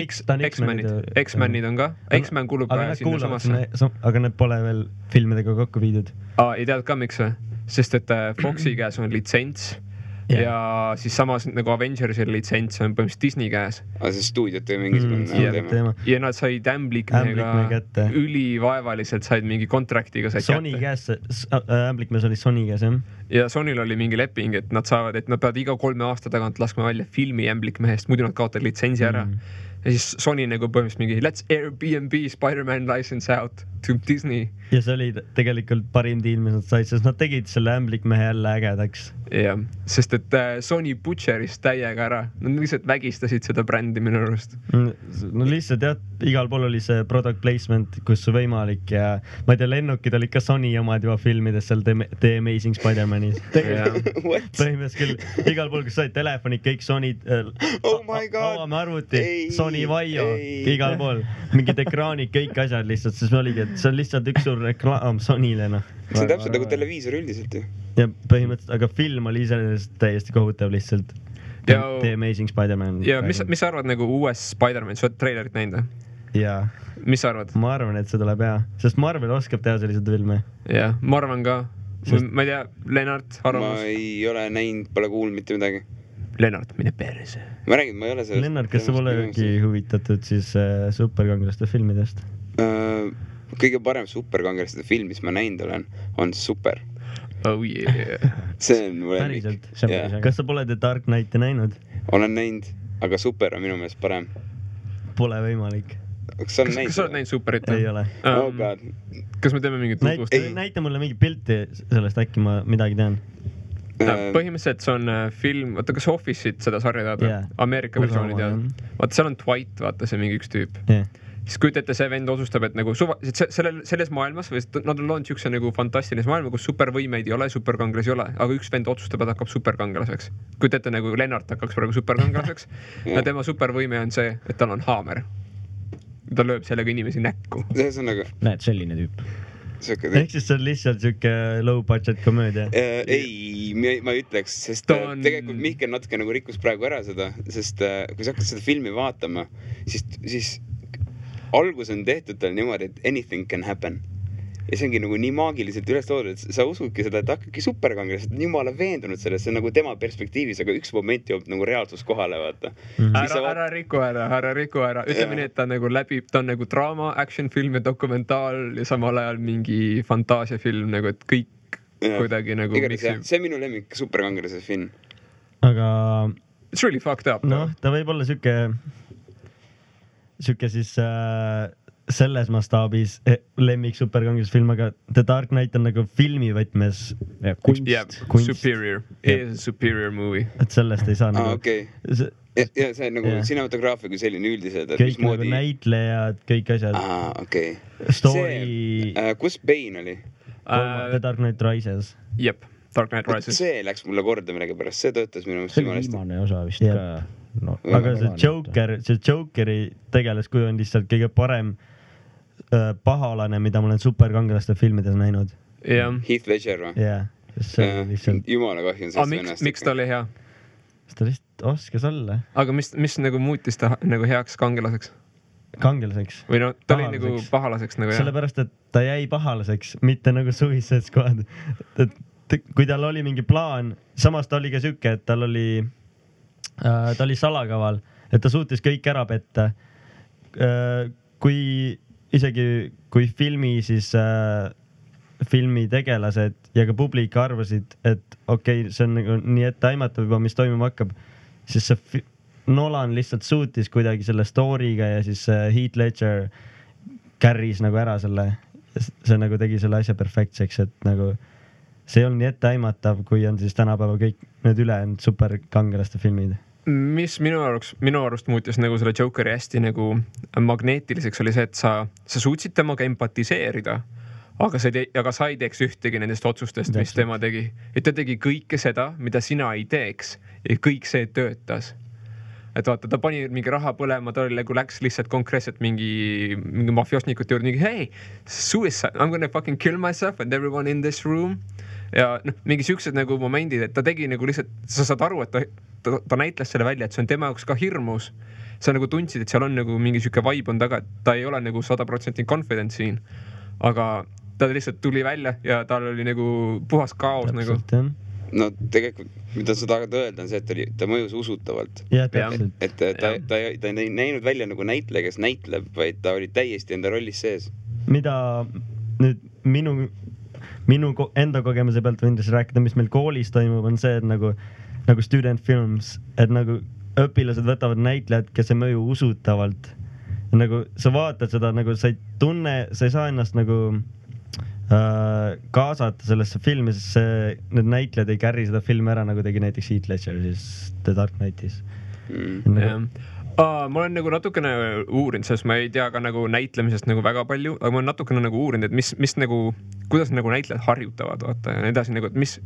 X-Menid on ka. X-Men kulub sinna samasse. Aga need pole veel filmidega kokku viidud. Ei tead ka miks või? Sest et Foxi käes on litsents ja siis samas nagu Avengersi litsents on põhimõtteliselt Disney käes. See stuudiot või mingisugune teema. Ja nad said Ämblikmehega ülivaevaliselt said mingi kontraktiga said Sony käes, Ämblikmees oli Sony käes, jah? Ja Sonyl oli mingi leping, et nad saavad, et nad peavad iga 3 aasta tagant laskma välja filmi Ämblikmehest, muidu nad kaotavad litsentsi ära. Ja siis Sony nagu põhimõtteliselt mingi let's Airbnb Spider-Man license out to Disney. Ja see oli tegelikult parim diil, mis nad said, sest nad tegid selle Ämblikmehe jälle ägedaks. Jah, sest et Sony butcheris täiega ära. Nad lihtsalt vägistasid seda brändi minu arust. No lihtsalt jah, igal pool oli see product placement, kus võimalik ja ma ei tea, lennukid olid ka Sony omad juba filmides seal The Amazing Spider-Manis. Põhimõtteliselt küll, igal pool, kus said telefonid, kõik Sony avame arvuti, Sony Vaio, igal pool. Mingid ekraanid, kõik asjad lihtsalt, sest me oligi, et see on lihtsalt üks suur reklaam Sonyle, noh. See on täpselt nagu televiisor üldiselt ju. Ja põhimõtteliselt, aga film oli iseenesest täiesti kohutav lihtsalt. The Amazing Spider-Man. Ja mis sa arvad nagu uues Spider-Man, sa oled trailerit näinud? Jaa. Mis sa arvad? Ma arvan, et see tuleb hea, sest Marvel oskab teha sellised filme. Jah, ma arvan ka. Ma ei tea, Lennart, arvamus? Ma ei ole näinud, pole kuulnud mitte midagi. Lennart, mine perse. Ma räägin, ma ei ole sellest... Lennart, kas sa polegi huvitatud siis superkangelaste filmidest? Kõige parem superkangelaste film, mis ma näinud olen, on Super. Oh yeah. See on mu lemmik. Päriselt. Kas sa pole The Dark Knighti näinud? Olen näinud, aga Super on minu meelest parem. Pole võimalik. kas sa oled näinud Superit? Ei ole. Oh god. Kas me teeme mingit tutvust? Näita mulle mingi pilti sellest, äkki ma midagi tean. Põhimõtteliselt see on film, vaata kas Office'it seda sarja tead? Ameerika versiooni tead? Vaata seal on Dwight, vaata see mingi üks tüüp. Siis kujuta ette, see vend otsustab, et nagu selles maailmas, või nad on loonud siukse nagu fantastilise maailma, kus supervõimeid ei ole, superkangelasi ei ole, aga üks vend otsustab, et hakkab superkangelaseks. Kujuta ette nagu Lennart hakkaks praegu superkangelaseks ja tema supervõime on see, et tal on haamer. Ta lööb sellega inimesi näkku. Näed, selline tüüp. Ehk siis see on lihtsalt siuke low budget komöödia? Ei, ma ei ütleks, sest tegelikult Mihkel natuke nagu rikkus praegu ära seda, sest kui sa hakkad seda filmi vaatama, siis algus on tehtud tal niimoodi, et anything can happen. Ja see ongi nagu nii maagiliselt üles toodud, et sa usudki seda, et hakkabki superkangelased, et jumala veendunud sellest, see on nagu tema perspektiivis, aga üks moment jõuab nagu reaalsus kohale, vaata. Ära riku ära. Ütleme nii, et ta nagu läbib, ta on nagu draama, action film ja dokumentaal ja samal ajal mingi fantaasiafilm, nagu et kõik kuidagi nagu miksib. See on minu lemmik superkangelase film. Aga it's really fucked up. Noh, ta võib olla siuke siis selles mastaabis lemmik superkangelasfilm, aga The Dark Knight on nagu filmi võtmes kunst. Superior. It is a superior movie. Et sellest ei saa nagu... Okei. Ja see on nagu cinematograafia kui selline üldiselt. Kõik nagu näitlejad, kõik asjad. Okei. Story... Kus Bane oli? The Dark Knight Rises. Jep, Dark Knight Rises. See läks mulle korda millegi pärast, see töötas minu mõttes jumala hästi. See oli viimane osa vist ka. No, aga see Jokeri tegelaskuju on lihtsalt kõige parem pahalane, mida ma olen superkangelaste filmides näinud. Heath Ledger või? Lihtsalt... Jumala kahju on sellest vennast. Miks ta oli hea? Ta lihtsalt oskas olla. Aga mis nagu muutis ta nagu heaks kangelaseks? Kangelaseks? Või no ta oli nagu pahalaseks nagu jah? Sellepärast, et ta jäi pahalaseks, mitte nagu Suicide Squad. Kui tal oli mingi plaan, samas ta oli ka siuke, et ta oli salakaval, et ta suutis kõik ära petta. Kui filmi tegelased ja ka publik arvasid, et okei, see on nagu nii etteaimatav juba, mis toimuma hakkab, siis see Nolan lihtsalt suutis kuidagi selle story'ga ja siis Heath Ledger carry's nagu ära selle, see nagu tegi selle asja perfektseks, et nagu see ei olnud nii etteaimatav, kui on siis tänapäeva kõik need ülejäänud superkangelaste filmid. Mis minu arust muutis nagu selle Jokeri hästi nagu magneetiliseks oli see, et sa suutsid temaga empatiseerida, aga sa ei teeks ühtegi nendest otsustest, mis tema tegi. Et ta tegi kõike seda, mida sina ei teeks ja kõik see töötas. Et vaata, ta pani mingi raha põlema, ta läks lihtsalt konkreetselt mingi mafiosnikute juurde, hey, suicide, I'm gonna fucking kill myself and everyone in this room. Ja mingi siuksed nagu momendid, et ta tegi nagu lihtsalt, sa saad aru, et ta näitles selle välja, et see on tema jaoks ka hirmus. Sa nagu tundsid, et seal on nagu mingi siuke vibe on taga, et ta ei ole nagu 100% confident siin. Aga ta lihtsalt tuli välja ja tal oli nagu puhas kaos nagu. No tegelikult, mida sa tahad öelda, on see, et ta mõjus usutavalt. Et ta ei näinud välja nagu näitleja, kes näitleb, vaid ta oli täiesti enda rollis sees. Mida nüüd minu enda kogemuse pealt võin rääkida, mis meil koolis toimub, on see, et nagu student films, et nagu õpilased võtavad näitlejad, kes ei mõju usutavalt. Nagu sa vaatad seda, nagu sa ei tunne, sa ei saa ennast nagu kaasata sellesse filmi, sest need näitlejad ei carry seda filmi ära, nagu tegi näiteks Heath Ledger siis The Dark Knightis. Ma olen nagu natukene uurinud, sest ma ei tea ka nagu näitlemisest nagu väga palju, aga ma olen natukene nagu uurinud, et mis nagu, kuidas nagu näitlejad harjutavad, vaata, ja edasi nagu, et mis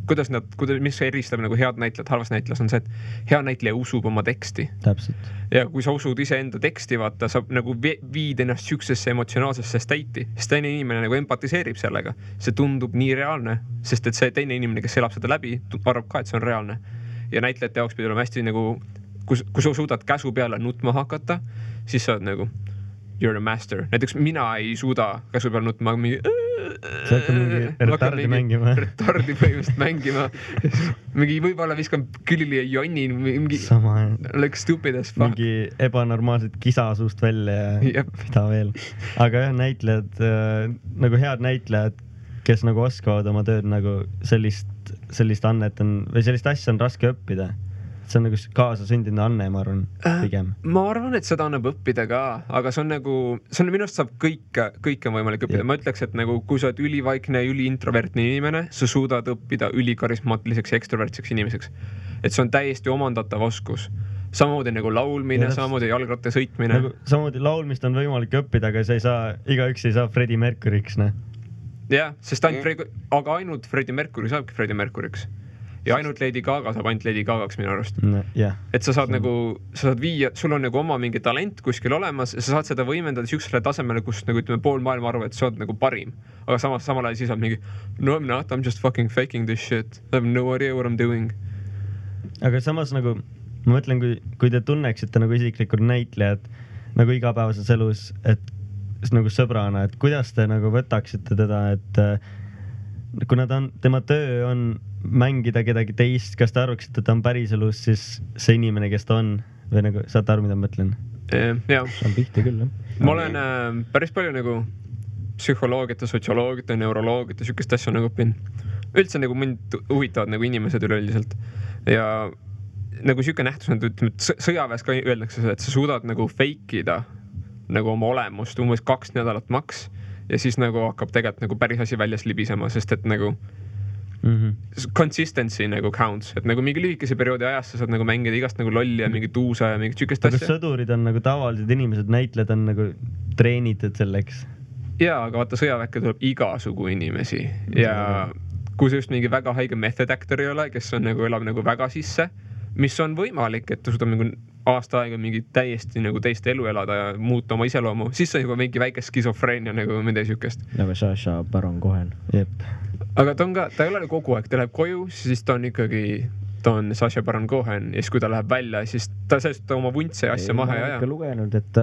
eristab nagu head näitlejad, halvast näitlejad on see, et hea näitleja usub oma teksti. Täpselt. Ja kui sa usud ise enda teksti, vaata, sa nagu viid ennast siuksesse emotsionaalsesse state'i, sest teine inimene nagu empatiseerib sellega. See tundub nii reaalne, sest et see teine inimene, kes elab seda läbi, arvab ka, et see on reaalne. Ja näitlejate jaoks pidi olema hästi nagu kui sa suudad käsu peale nutma hakata, siis sa oled nagu you're a master. Näiteks mina ei suuda käsu peale nutma, sa hakkad mingi retardi mängima. Retardi põhimõtteliselt mängima. Mingi võib-olla viskan külili ja jonni, mingi like stupid as fuck. Mingi ebanormaalselt kisa suust välja ja mida veel. Aga jah, näitlejad, nagu head näitlejad, kes nagu oskavad oma tööd nagu sellist annet on, või sellist asja on raske õppida. see on nagu kaasasündinud anne, ma arvan, pigem. Ma arvan, et seda annab õppida ka, aga see on minu arust saab kõike on võimalik õppida. Ma ütleks, et nagu kui sa oled ülivaikne ja üliintrovertne inimene, sa suudad õppida ülikarismaatiliseks ja ekstravertseks inimeseks. Et see on täiesti omandatav oskus. Samamoodi nagu laulmine, samamoodi jalgratta sõitmine. Nagu, samamoodi laulmist on võimalik õppida, aga igaüks ei saa Freddie Mercury'ks, ne? Jah, sest aga ainult Freddie Mercury saabki Freddie Mercury'ks. Ja ainult Lady Gaga saab ainult Lady Gagaks minu arust. Et sa saad viia, sul on nagu oma mingi talent kuskil olemas ja sa saad seda võimendada siuksele tasemele, kus nagu ütleme pool maailma arvab, et sa oled nagu parim. Aga samal ajal siis on mingi, no I'm not, I'm just fucking faking this shit. I have no idea what I'm doing. Aga samas nagu ma mõtlen, kui te tunneksite nagu isiklikult näitlejad nagu igapäevases elus, et nagu sõbrana, et kuidas te nagu võtaksite teda, et kuna tema töö on mängida kedagi teist, kas te arvaksite, et ta on päriselus siis see inimene, kes ta on või nagu saate aru, mida ma mõtlen? Jah. See on pihti küll, jah. Ma olen päris palju nagu psühholoogiat ja sotsioloogiat ja neuroloogiat ja sükest asja nagu õpin. Üldse nagu mind huvitavad nagu inimesed üleüldiselt ja nagu siuke nähtus, ütleme, sõjaväes ka öeldakse seda, et sa suudad nagu fake'ida nagu oma olemust umbes 2 nädalat maks ja siis nagu hakkab tegelikult nagu päris asi väljas libisema, sest et nagu consistency nagu counts, et nagu mingi lühikese perioodi ajast sa saad nagu mängida igast nagu lolli ja mingit uusa ja mingit sükest asja. Aga sõdurid on nagu tavalised inimesed, näitlejad on nagu treenitud selleks. Jaa, aga vaata sõjaväkke tuleb igasugu inimesi ja kui sa just mingi väga haige method actor ei ole, kes on nagu elab nagu väga sisse, mis on võimalik, et ta suudab nagu aasta aega mingi täiesti nagu teist elu elada ja muuta oma iseloomu, siis on juba mingi väike skisofreenia nagu midagi sükest. Nagu Saša Baron Cohen. Jep. Aga ta ei ole kogu aeg, ta läheb koju, siis ta on Saša Baron Cohen ja siis kui ta läheb välja, siis ta sellest oma vuntse asja maha ja ma olen lugenud, et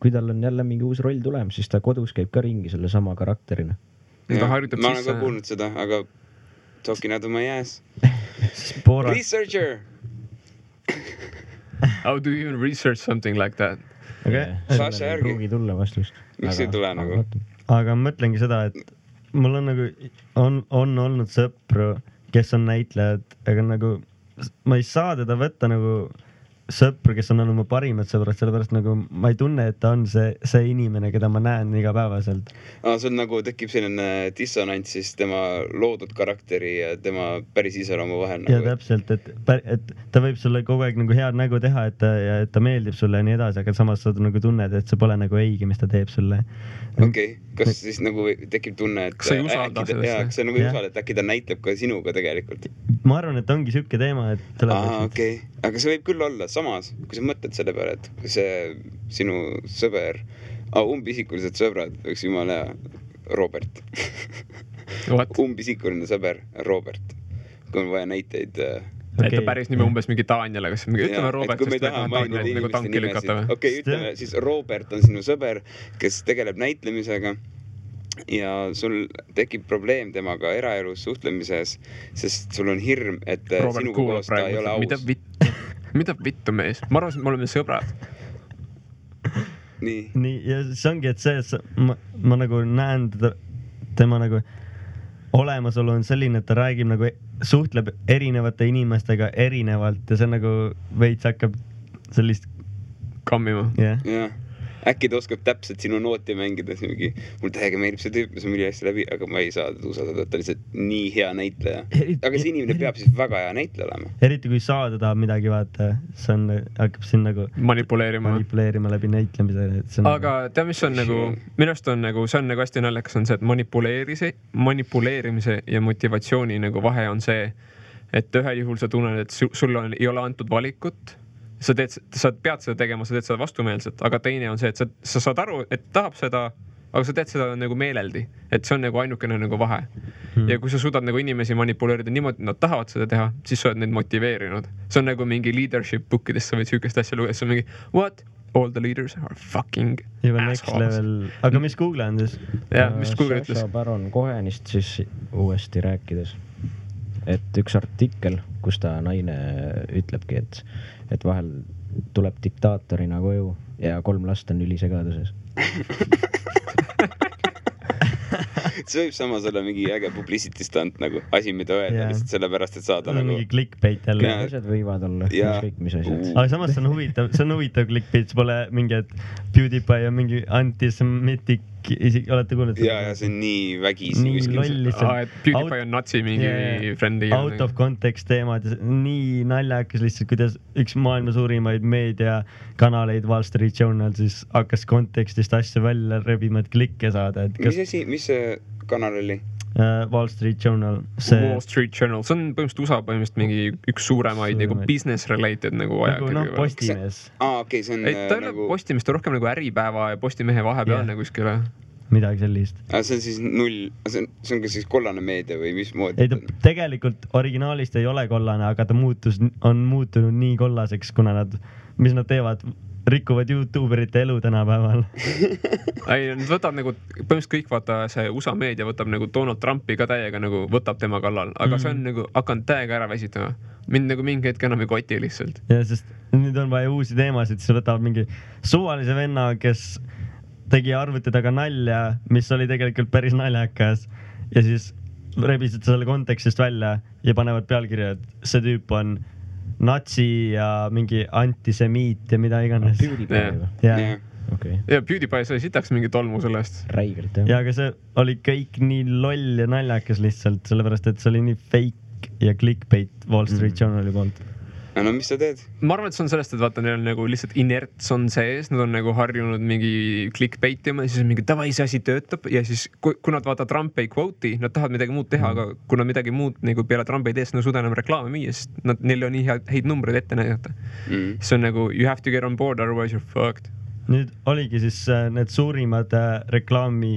kui tal on jälle mingi uus roll tulem, siis ta kodus käib ka ringi selle sama karakterina. Ma olen ka kuulnud seda, aga talking out of my ass. Researcher! How do you even research something like that? Saša järgi. Pruugi tulla vastust. Miks ei tule nagu? Aga ma mõtlengi seda, et mul on nagu, on olnud sõpru, kes on näitlejad, aga nagu ma ei saa teda võtta nagu sõpru, kes on olnud mu parimad sõbrad, sellepärast nagu ma ei tunne, et ta on see inimene, keda ma näen igapäevaselt. Sul nagu tekib selline dissonants siis tema loodud karakteri ja tema päris iseloomu vahel. Ja täpselt, et ta võib sulle kogu aeg nagu head nägu teha, et ta meeldib sulle ja nii edasi, aga samas sa nagu tunned, et see pole nagu õige, mis ta teeb sulle. Okei, kas siis nagu tekib tunne, et sa ei usalda sellesse? Kas sa nagu ei usalda, et äkki ta näitleb ka sinuga tegelikult? Ma arvan, et ongi siuke teema, et okei. Aga see võib küll olla samas, kui sa mõtled selle peale, et see sinu sõber, umbisikulised sõbrad, võiks jumala Robert. Umbisikuline sõber Robert. Kui on vaja näiteid. Et ta päris nime umbes mingi Daniel, aga ütleme Robert, sest me taha mainida inimeste nimesid. Okei, ütleme siis Robert on sinu sõber, kes tegeleb näitlemisega ja sul tekib probleem temaga eraelus suhtlemises, sest sul on hirm, et sinuga koos ta ei ole aus. Mida vittu mees? Ma arvan, et me oleme sõbrad. Nii, ja see ongi, et see, et ma nagu näen tema nagu olemasolu on selline, et ta räägib nagu, suhtleb erinevate inimestega erinevalt ja see nagu veits hakkab sellist kammima. Jah. Äkki ta oskab täpselt sinu nooti mängida, mul täiega meeldib see tüüp, see on üli hästi läbi, aga ma ei saa usaldada, et ta lihtsalt nii hea näitleja. Aga see inimene peab siis väga hea näitleja olema. Eriti kui saada tahab midagi vaata, see on, hakkab siin nagu manipuleerima läbi näitlemise. Aga tea, mis on nagu, minust on nagu, see on nagu hästi naljakas on see, et manipuleerimise ja motivatsiooni nagu vahe on see, et ühel juhul sa tunned, et sulle ei ole antud valikut. Sa pead seda tegema, sa teed seda vastumeelselt, aga teine on see, et sa saad aru, et tahab seda, aga sa teed seda nagu meeleldi, et see on nagu ainukene nagu vahe. Ja kui sa suudad nagu inimesi manipuleerida niimoodi, et nad tahavad seda teha, siis sa oled neid motiveerinud. See on nagu mingi leadership bookidest, sa võid sükest asja lugeda, see on mingi, what? All the leaders are fucking assholes. Aga mis Google on siis? Ja, mis Google ütles? Saša Baron Cohenist siis uuesti rääkides, et üks artikkel, kus ta naine ütlebki, et vahel tuleb diktaatorina koju ja 3 last on ülisegaduses. see võib samas olla mingi äge publicity stunt nagu asi, mida öelda lihtsalt sellepärast, et saada nagu mingi clickbait jälle. Ja. asjad võivad olla, ükskõik mis asjad. Aga samas see on huvitav clickbait, see pole mingi, et PewDiePie on mingi antisemitic, isegi olete kuulnud? Ja see on nii vägisi. Nii loll lihtsalt. Et PewDiePie on natsi mingi friend'i. Out of context teemad, nii naljakas lihtsalt, kuidas üks maailma suurimaid meediakanaleid Wall Street Journal siis hakkas kontekstist asju välja rebima, et klikke saada. Mis see kanal oli? Wall Street Journal. Wall Street Journal, see on põhimõtteliselt USA põhimõtteliselt mingi üks suuremaid nagu business related nagu ajakirju. Postimees. Okei, see on ta ei ole Postimees, ta rohkem nagu Äripäeva ja Postimehe vahepealne kuskile. Midagi sellist. See on siis see on ka siis kollane meedia või mismoodi? Ei, ta tegelikult originaalist ei ole kollane, aga ta on muutunud nii kollaseks, kuna mis nad teevad, rikuvad YouTuberite elu tänapäeval. Ei, nad võtab nagu, põhimõtteliselt kõik vaata see USA meedia võtab nagu Donald Trumpi ka täiega nagu võtab tema kallal, aga see on nagu hakanud täiega ära väsitama. Mind nagu mingi hetk enam ei koti lihtsalt. Ja, sest nüüd on vaja uusi teemasid, siis võtavad mingi suvalise venna, kes tegi arvuti taga nalja, mis oli tegelikult päris naljakas ja siis rebisid selle kontekstist välja ja panevad pealkirja, et see tüüp on natsi ja mingi antisemiit ja mida iganes. PewDiePie. Okay. Ja PewDiePie sai sitaks mingi tolmu sellest. Räigelt, jah. Ja aga see oli kõik nii loll ja naljakas lihtsalt, sellepärast et see oli nii fake ja clickbait Wall Street Journali poolt. No mis sa teed? Ma arvan, et see on sellest, et vaata, neil on nagu lihtsalt inerts on sees, nad on nagu harjunud mingi clickbait ja siis on mingi tavai, see asi töötab ja siis kui nad vaata Trump ei quote'i, nad tahavad midagi muud teha, aga kui nad midagi muud nagu peale Trump ei tee, siis nad suuda enam reklaame müüa, sest neil on nii häid numbreid ette näidata. See on nagu you have to get on board, otherwise you're fucked. Nüüd oligi siis need suurimad reklaami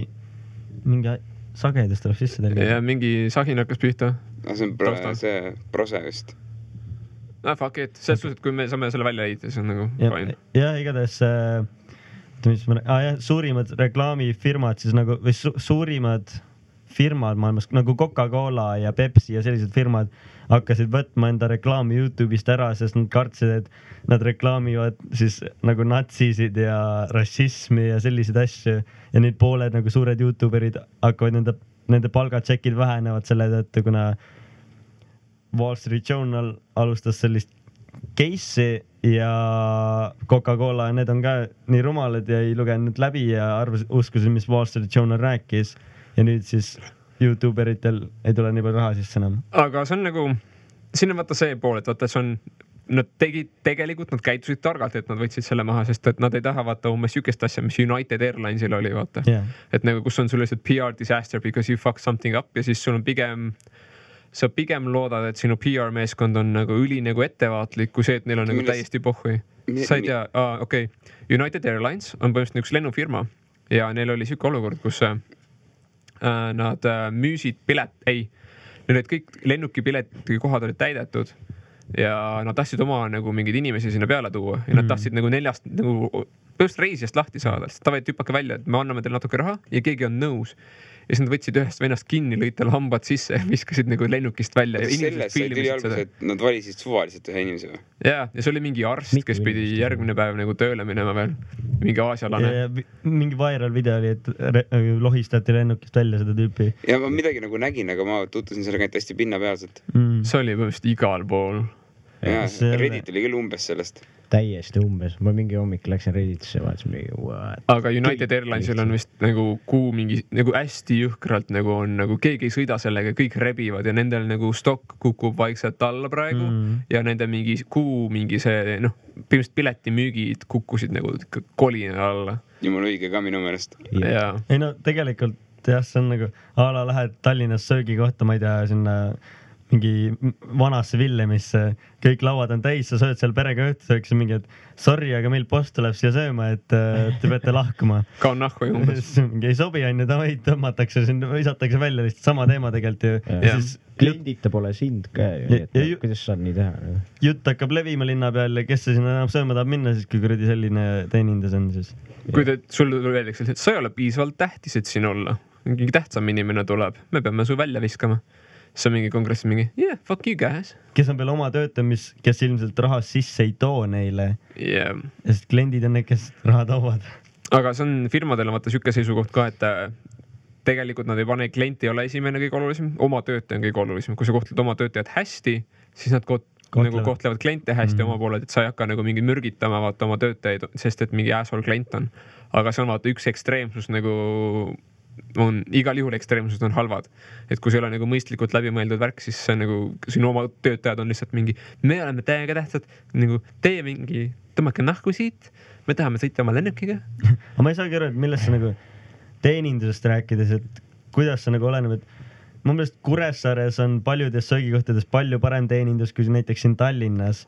mingi sagedus tuleb sisse teile. Ja mingi sagin hakkas pihta. See on see prose vist. Fuck it, selles suhtes, et kui me saame selle välja leida, siis on nagu fine. Ja igatahes suurimad reklaamifirmad siis nagu, või suurimad firmad maailmas, nagu Coca-Cola ja Pepsi ja sellised firmad hakkasid võtma enda reklaami YouTube'ist ära, sest nad kartsid, et nad reklaamivad siis nagu natsisid ja rassismi ja selliseid asju ja nüüd pooled nagu suured YouTuberid hakkavad nende palgatšekid vähenevad selle tõttu, kuna Wall Street Journal alustas sellist case'i ja Coca-Cola, need on ka nii rumalad ja ei lugenud läbi ja uskusid, mis Wall Street Journal rääkis ja nüüd siis YouTuberitel ei tule nii palju raha sisse enam. Aga see on nagu, siin on vaata see pool, et vaata see on, nad tegid tegelikult, nad käitusid targalt, et nad võtsid selle maha, sest et nad ei taha vaata umbes sükest asja, mis United Airlinesil oli, vaata. Et nagu, kus on sul lihtsalt PR disaster because you fuck something up ja siis sul on sa pigem loodad, et sinu PR meeskond on nagu üli nagu ettevaatlik, kui see, et neil on nagu täiesti pohhui. Sa ei tea, okei. United Airlines on põhimõtteliselt üks lennufirma ja neil oli siuke olukord, kus nad müüsid neil olid kõik lennukipiletid kohad olid täidetud ja nad tahtsid oma nagu mingeid inimesi sinna peale tuua ja nad tahtsid nagu 4 nagu põhimõtteliselt reisijast lahti saada, sest tavaid tüpake välja, et me anname teile natuke raha ja keegi on nõus. Ja siis nad võtsid ühest vennast kinni, lõid tal hambad sisse ja viskasid nagu lennukist välja. Sellest sai tuli alguses, et nad valisid suvaliselt ühe inimese või? Ja see oli mingi arst, kes pidi järgmine päev nagu tööle minema veel. Mingi aasialane. Mingi viral video oli, et lohistati lennukist välja seda tüüpi. Ja ma midagi nagu nägin, aga ma tutvusin sellega hästi pinnapealselt. See oli põhimõtteliselt igal pool. Ja, Reddit oli küll umbes sellest. Täiesti umbes. Ma mingi hommik läksin Redditisse, vaatasin mingi what? Aga United Airlinesil on vist nagu mingi nagu hästi jõhkralt nagu on nagu keegi ei sõida sellega, kõik rebivad ja nendel nagu stokk kukub vaikselt alla praegu ja nende mingi mingi see põhimõtteliselt piletimüügid kukkusid nagu kolina alla. Jumala õige ka minu meelest. Ei no tegelikult jah, see on nagu lähed Tallinnas söögikohta, ma ei tea, sinna mingi vanasse Villemisse, kõik lauad on täis, sa sööd seal perega õhtusööks mingi, et sorry, aga meil post tuleb siia sööma, et te peate lahkuma. Kaun nahku ju umbes. Mingi ei sobi, on ju, tavaid tõmmatakse, visatakse välja lihtsalt sama teema tegelikult ju. Kliendita pole sind ka ju, kuidas saad nii teha? Jutt hakkab levima linna peal ja kes see sinna enam sööma tahab minna, siis kui kuradi selline teenindas on siis. Kui sul öeldakse, et sa ei ole piisavalt tähtis, et siin olla. Mingi tähtsam inimene tuleb, me peame su välja viskama. See on mingi kongressi mingi, yeah, fuck you guys. Kes on veel oma töötamis, kes ilmselt raha sisse ei too neile. Sest kliendid on need, kes raha toovad. Aga see on firmadel vaata siuke seisukoht ka, et tegelikult nad ei pane, klient ei ole esimene kõige olulisem, oma töötaja on kõige olulisem. Kui sa kohtled oma töötajad hästi, siis nad nagu kohtlevad kliente hästi oma pooled, et sa ei hakka nagu mingi mürgitama vaata oma töötajaid, sest et mingi asshole klient on. Aga see on vaata üks ekstreemsus nagu on igal juhul ekstreemsused on halvad. Et kui see ei ole nagu mõistlikult läbimõeldud värk, siis see nagu sinu oma töötajad on lihtsalt mingi, me oleme täiega tähtsad, nagu teie mingi tõmmake nahku siit, me tahame sõita oma lennukiga. Aga ma ei saagi aru, et millest sa nagu teenindusest rääkides, et kuidas see nagu oleneb, et mu meelest Kuressaares on paljudes söögikohtades palju parem teenindus kui näiteks siin Tallinnas.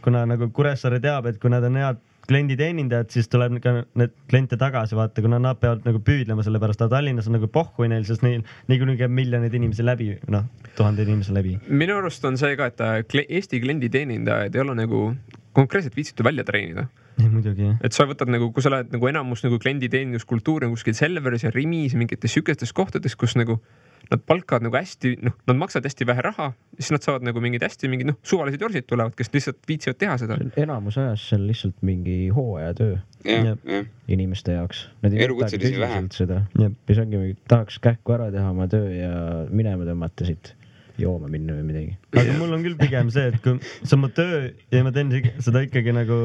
Kuna nagu Kuressaare teab, et kui nad on head klienditeenindajad, siis tuleb ka need kliente tagasi vaata, kuna nad peavad nagu püüdlema selle pärast, aga Tallinnas on nagu pohhui neil, sest neil niikuinii käib miljoneid inimesi läbi, noh, 1000 inimesi läbi. Minu arust on see ka, et Eesti klienditeenindajaid ei ole nagu konkreetselt viitsitu välja treenida. Ei, muidugi, jah. Et sa võtad nagu, kui sa lähed nagu enamus nagu klienditeeninduskultuuri kuskil Selveris ja Rimis mingites sükestes kohtades, kus nagu nad palkavad nagu hästi, noh, nad maksavad hästi vähe raha, siis nad saavad nagu mingid hästi mingid, noh, suvalised jorsid tulevad, kes lihtsalt viitsivad teha seda. Enamus ajas seal lihtsalt mingi hooajatöö inimeste jaoks. Nad ei võtagi tõsiselt seda. Mis ongi, tahaks kähku ära teha oma töö ja minema tõmmata siit jooma minna või midagi. Aga mul on küll pigem see, et kui see on mu töö ja ma teen seda ikkagi nagu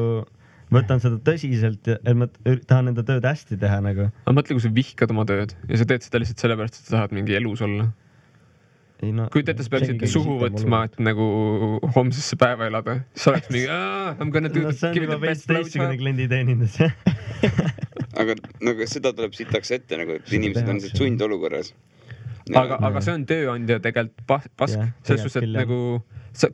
võtan seda tõsiselt, et ma tahan enda tööd hästi teha nagu. Aga mõtle, kui sa vihkad oma tööd ja sa teed seda lihtsalt sellepärast, et sa tahad mingi elus olla. Kui teete, sa peaksid suhu võtma, et nagu homsesse päeva elada. Sa oleks mingi, I'm gonna do see on juba veits teistsugune klienditeenindus. Aga nagu seda tuleb sitaks ette, nagu, et inimesed on sundolukorras. Aga see on tööandja tegelikult pask. Selles suhtes, et nagu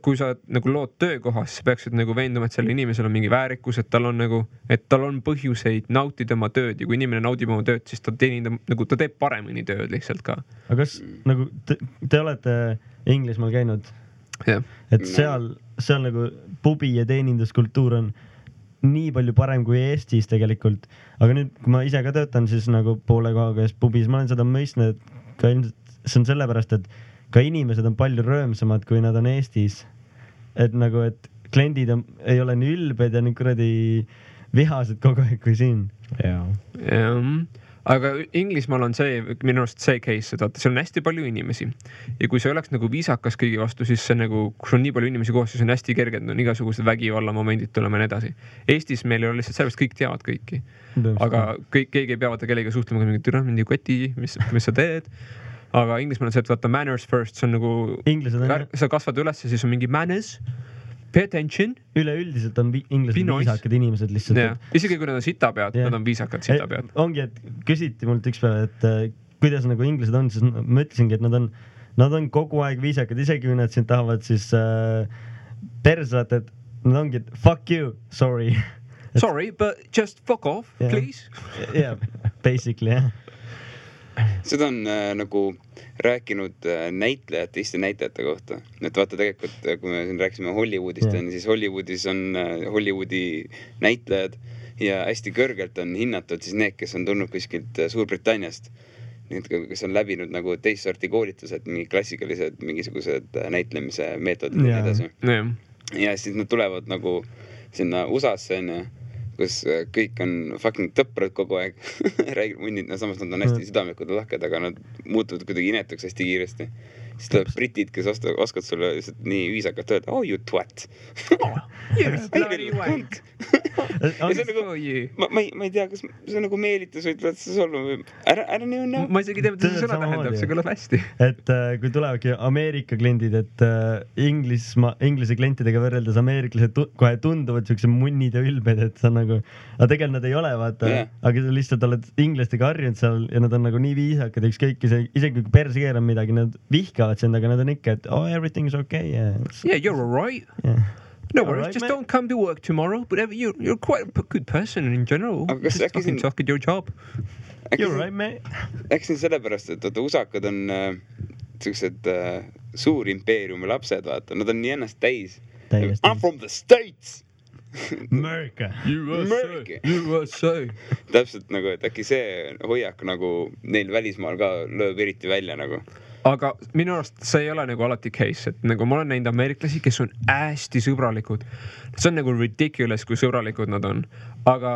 kui sa nagu lood töökohas, siis peaksid nagu veenduma, et sellel inimesel on mingi väärikus, et tal on põhjuseid nautida oma tööd ja kui inimene naudib oma tööd, siis ta teenindab, nagu ta teeb paremini tööd lihtsalt ka. Aga kas nagu te olete Inglismaal käinud? Et seal nagu pubi ja teeninduskultuur on nii palju parem kui Eestis tegelikult. Aga nüüd, kui ma ise ka töötan, siis nagu poole kohaga pubis, ma olen seda mõistnud, et ka ilmselt see on sellepärast, et ka inimesed on palju röömsamad, kui nad on Eestis. Et nagu, et kliendid ei ole nii ülbed ja nii kuradi vihased kogu aeg kui siin. Aga Inglismaal on see, minu arust see case, et seal on hästi palju inimesi. Ja kui see oleks nagu viisakas kõigi vastu, siis see nagu, kui on nii palju inimesi koos, siis on hästi kerge, on igasugused vägivalla momendid tulema ja nii edasi. Eestis meil ei ole lihtsalt sellest, kõik teavad kõiki. Aga keegi ei peavad kellega suhtlema, mingi türa, mingi koti, mis sa teed. Aga Inglismaal on see, et vaata manners first, see on nagu, sa kasvad üles ja siis on mingi manners, pay attention. Üleüldiselt on inglased viisakad inimesed lihtsalt. Isegi kui nad on sitapead, nad on viisakad sitapead. Ongi, et küsiti mult üks päev, et kuidas nagu inglased on, siis ma ütlesingi, et nad on kogu aeg viisakad, isegi kui nad sind tahavad siis persat, et nad ongi, et fuck you, sorry. Sorry, but just fuck off, please. Basically, jah. Seda on nagu rääkinud näitlejad teiste näitlejate kohta. Et vaata tegelikult, kui me siin rääkisime Hollywoodist, siis Hollywoodis on Hollywoodi näitlejad ja hästi kõrgelt on hinnatud siis need, kes on tulnud kuskilt Suurbritanniast. Need, kes on läbinud nagu teist sorti koolitused, mingi klassikalised mingisugused näitlemise meetodid ja edasi. Ja siis nad tulevad nagu sinna USA-sse, kus kõik on fucking tõprad kogu aeg. Räägid munnid, samas nad on hästi südamlikud ja lahked, aga nad muutuvad kuidagi inetuks hästi kiiresti. Siis tuleb britid, kes oskavad sulle lihtsalt nii viisakalt öelda, oh you twat. Bloody white. Ma ei tea, kas see on nagu meelitus või tuleb see solva või ära nii on. Ma isegi tea, mida see sõna tähendab, see kõlab hästi. Et kui tulevadki Ameerika kliendid, et inglise klientidega võrreldes ameeriklased kohe tunduvad siukse munnid ja ülbed, et see on nagu, aga tegelikult nad ei ole, vaata, aga sa lihtsalt oled inglastega harjunud seal ja nad on nagu nii viisakad, ükskõik, isegi kui perse keerab midagi, nad vihkavad sind, aga nad on ikka, et oh, everything's okay. Yeah, you're all right. No worries, just don't come to work tomorrow, but you're quite a good person in general. Just fucking suck at your job. You're right, mate. Äkki sellepärast, et usakad on sellised suur impeeriumi lapsed, vaata. Nad on nii ennast täis. I'm from the States! America. USA. Täpselt nagu, et äkki see hoiak nagu neil välismaal ka lööb eriti välja nagu. Aga minu arust see ei ole nagu alati case, et nagu ma olen näinud ameeriklasi, kes on hästi sõbralikud. See on nagu ridiculous, kui sõbralikud nad on. Aga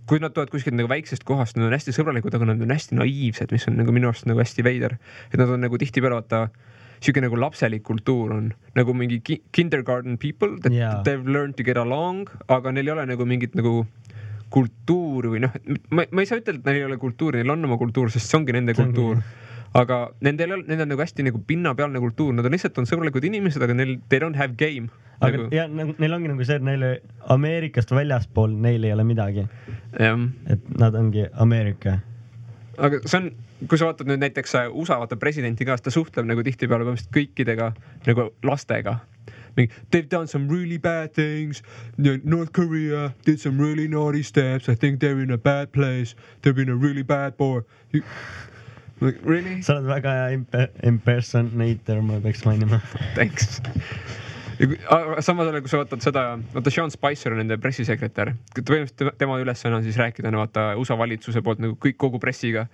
kui nad tulevad kuskilt nagu väiksest kohast, nad on hästi sõbralikud, aga nad on hästi naiivsed, mis on nagu minu arust nagu hästi veider. Et nad on nagu tihtipeale vaata siuke nagu lapselik kultuur on nagu mingi kindergarten people that they've learned to get along, aga neil ei ole nagu mingit nagu kultuuri või noh, ma ei saa ütelda, et neil ei ole kultuuri, neil on oma kultuur, sest see ongi nende kultuur. Aga nendel on nagu hästi nagu pinnapealne kultuur, nad on lihtsalt sõbralikud inimesed, aga neil, they don't have game. Aga ja neil ongi nagu see, et neile Ameerikast väljaspool neil ei ole midagi. Et nad ongi Ameerika. Aga see on, kui sa vaatad nüüd näiteks USA vaata presidenti ka, ta suhtleb nagu tihtipeale kõikidega nagu lastega. They've done some really bad things. North Korea did some really naughty steps. I think they're in a bad place. They've been a really bad boy. Really? Sa oled väga hea impersonator, ma peaks mainima. Thanks. Samas ole, kui sa vaatad seda, vaata Sean Spicer on nende pressisekretär. Tema ülesanne on siis rääkida vaata USA valitsuse poolt nagu kogu pressiga.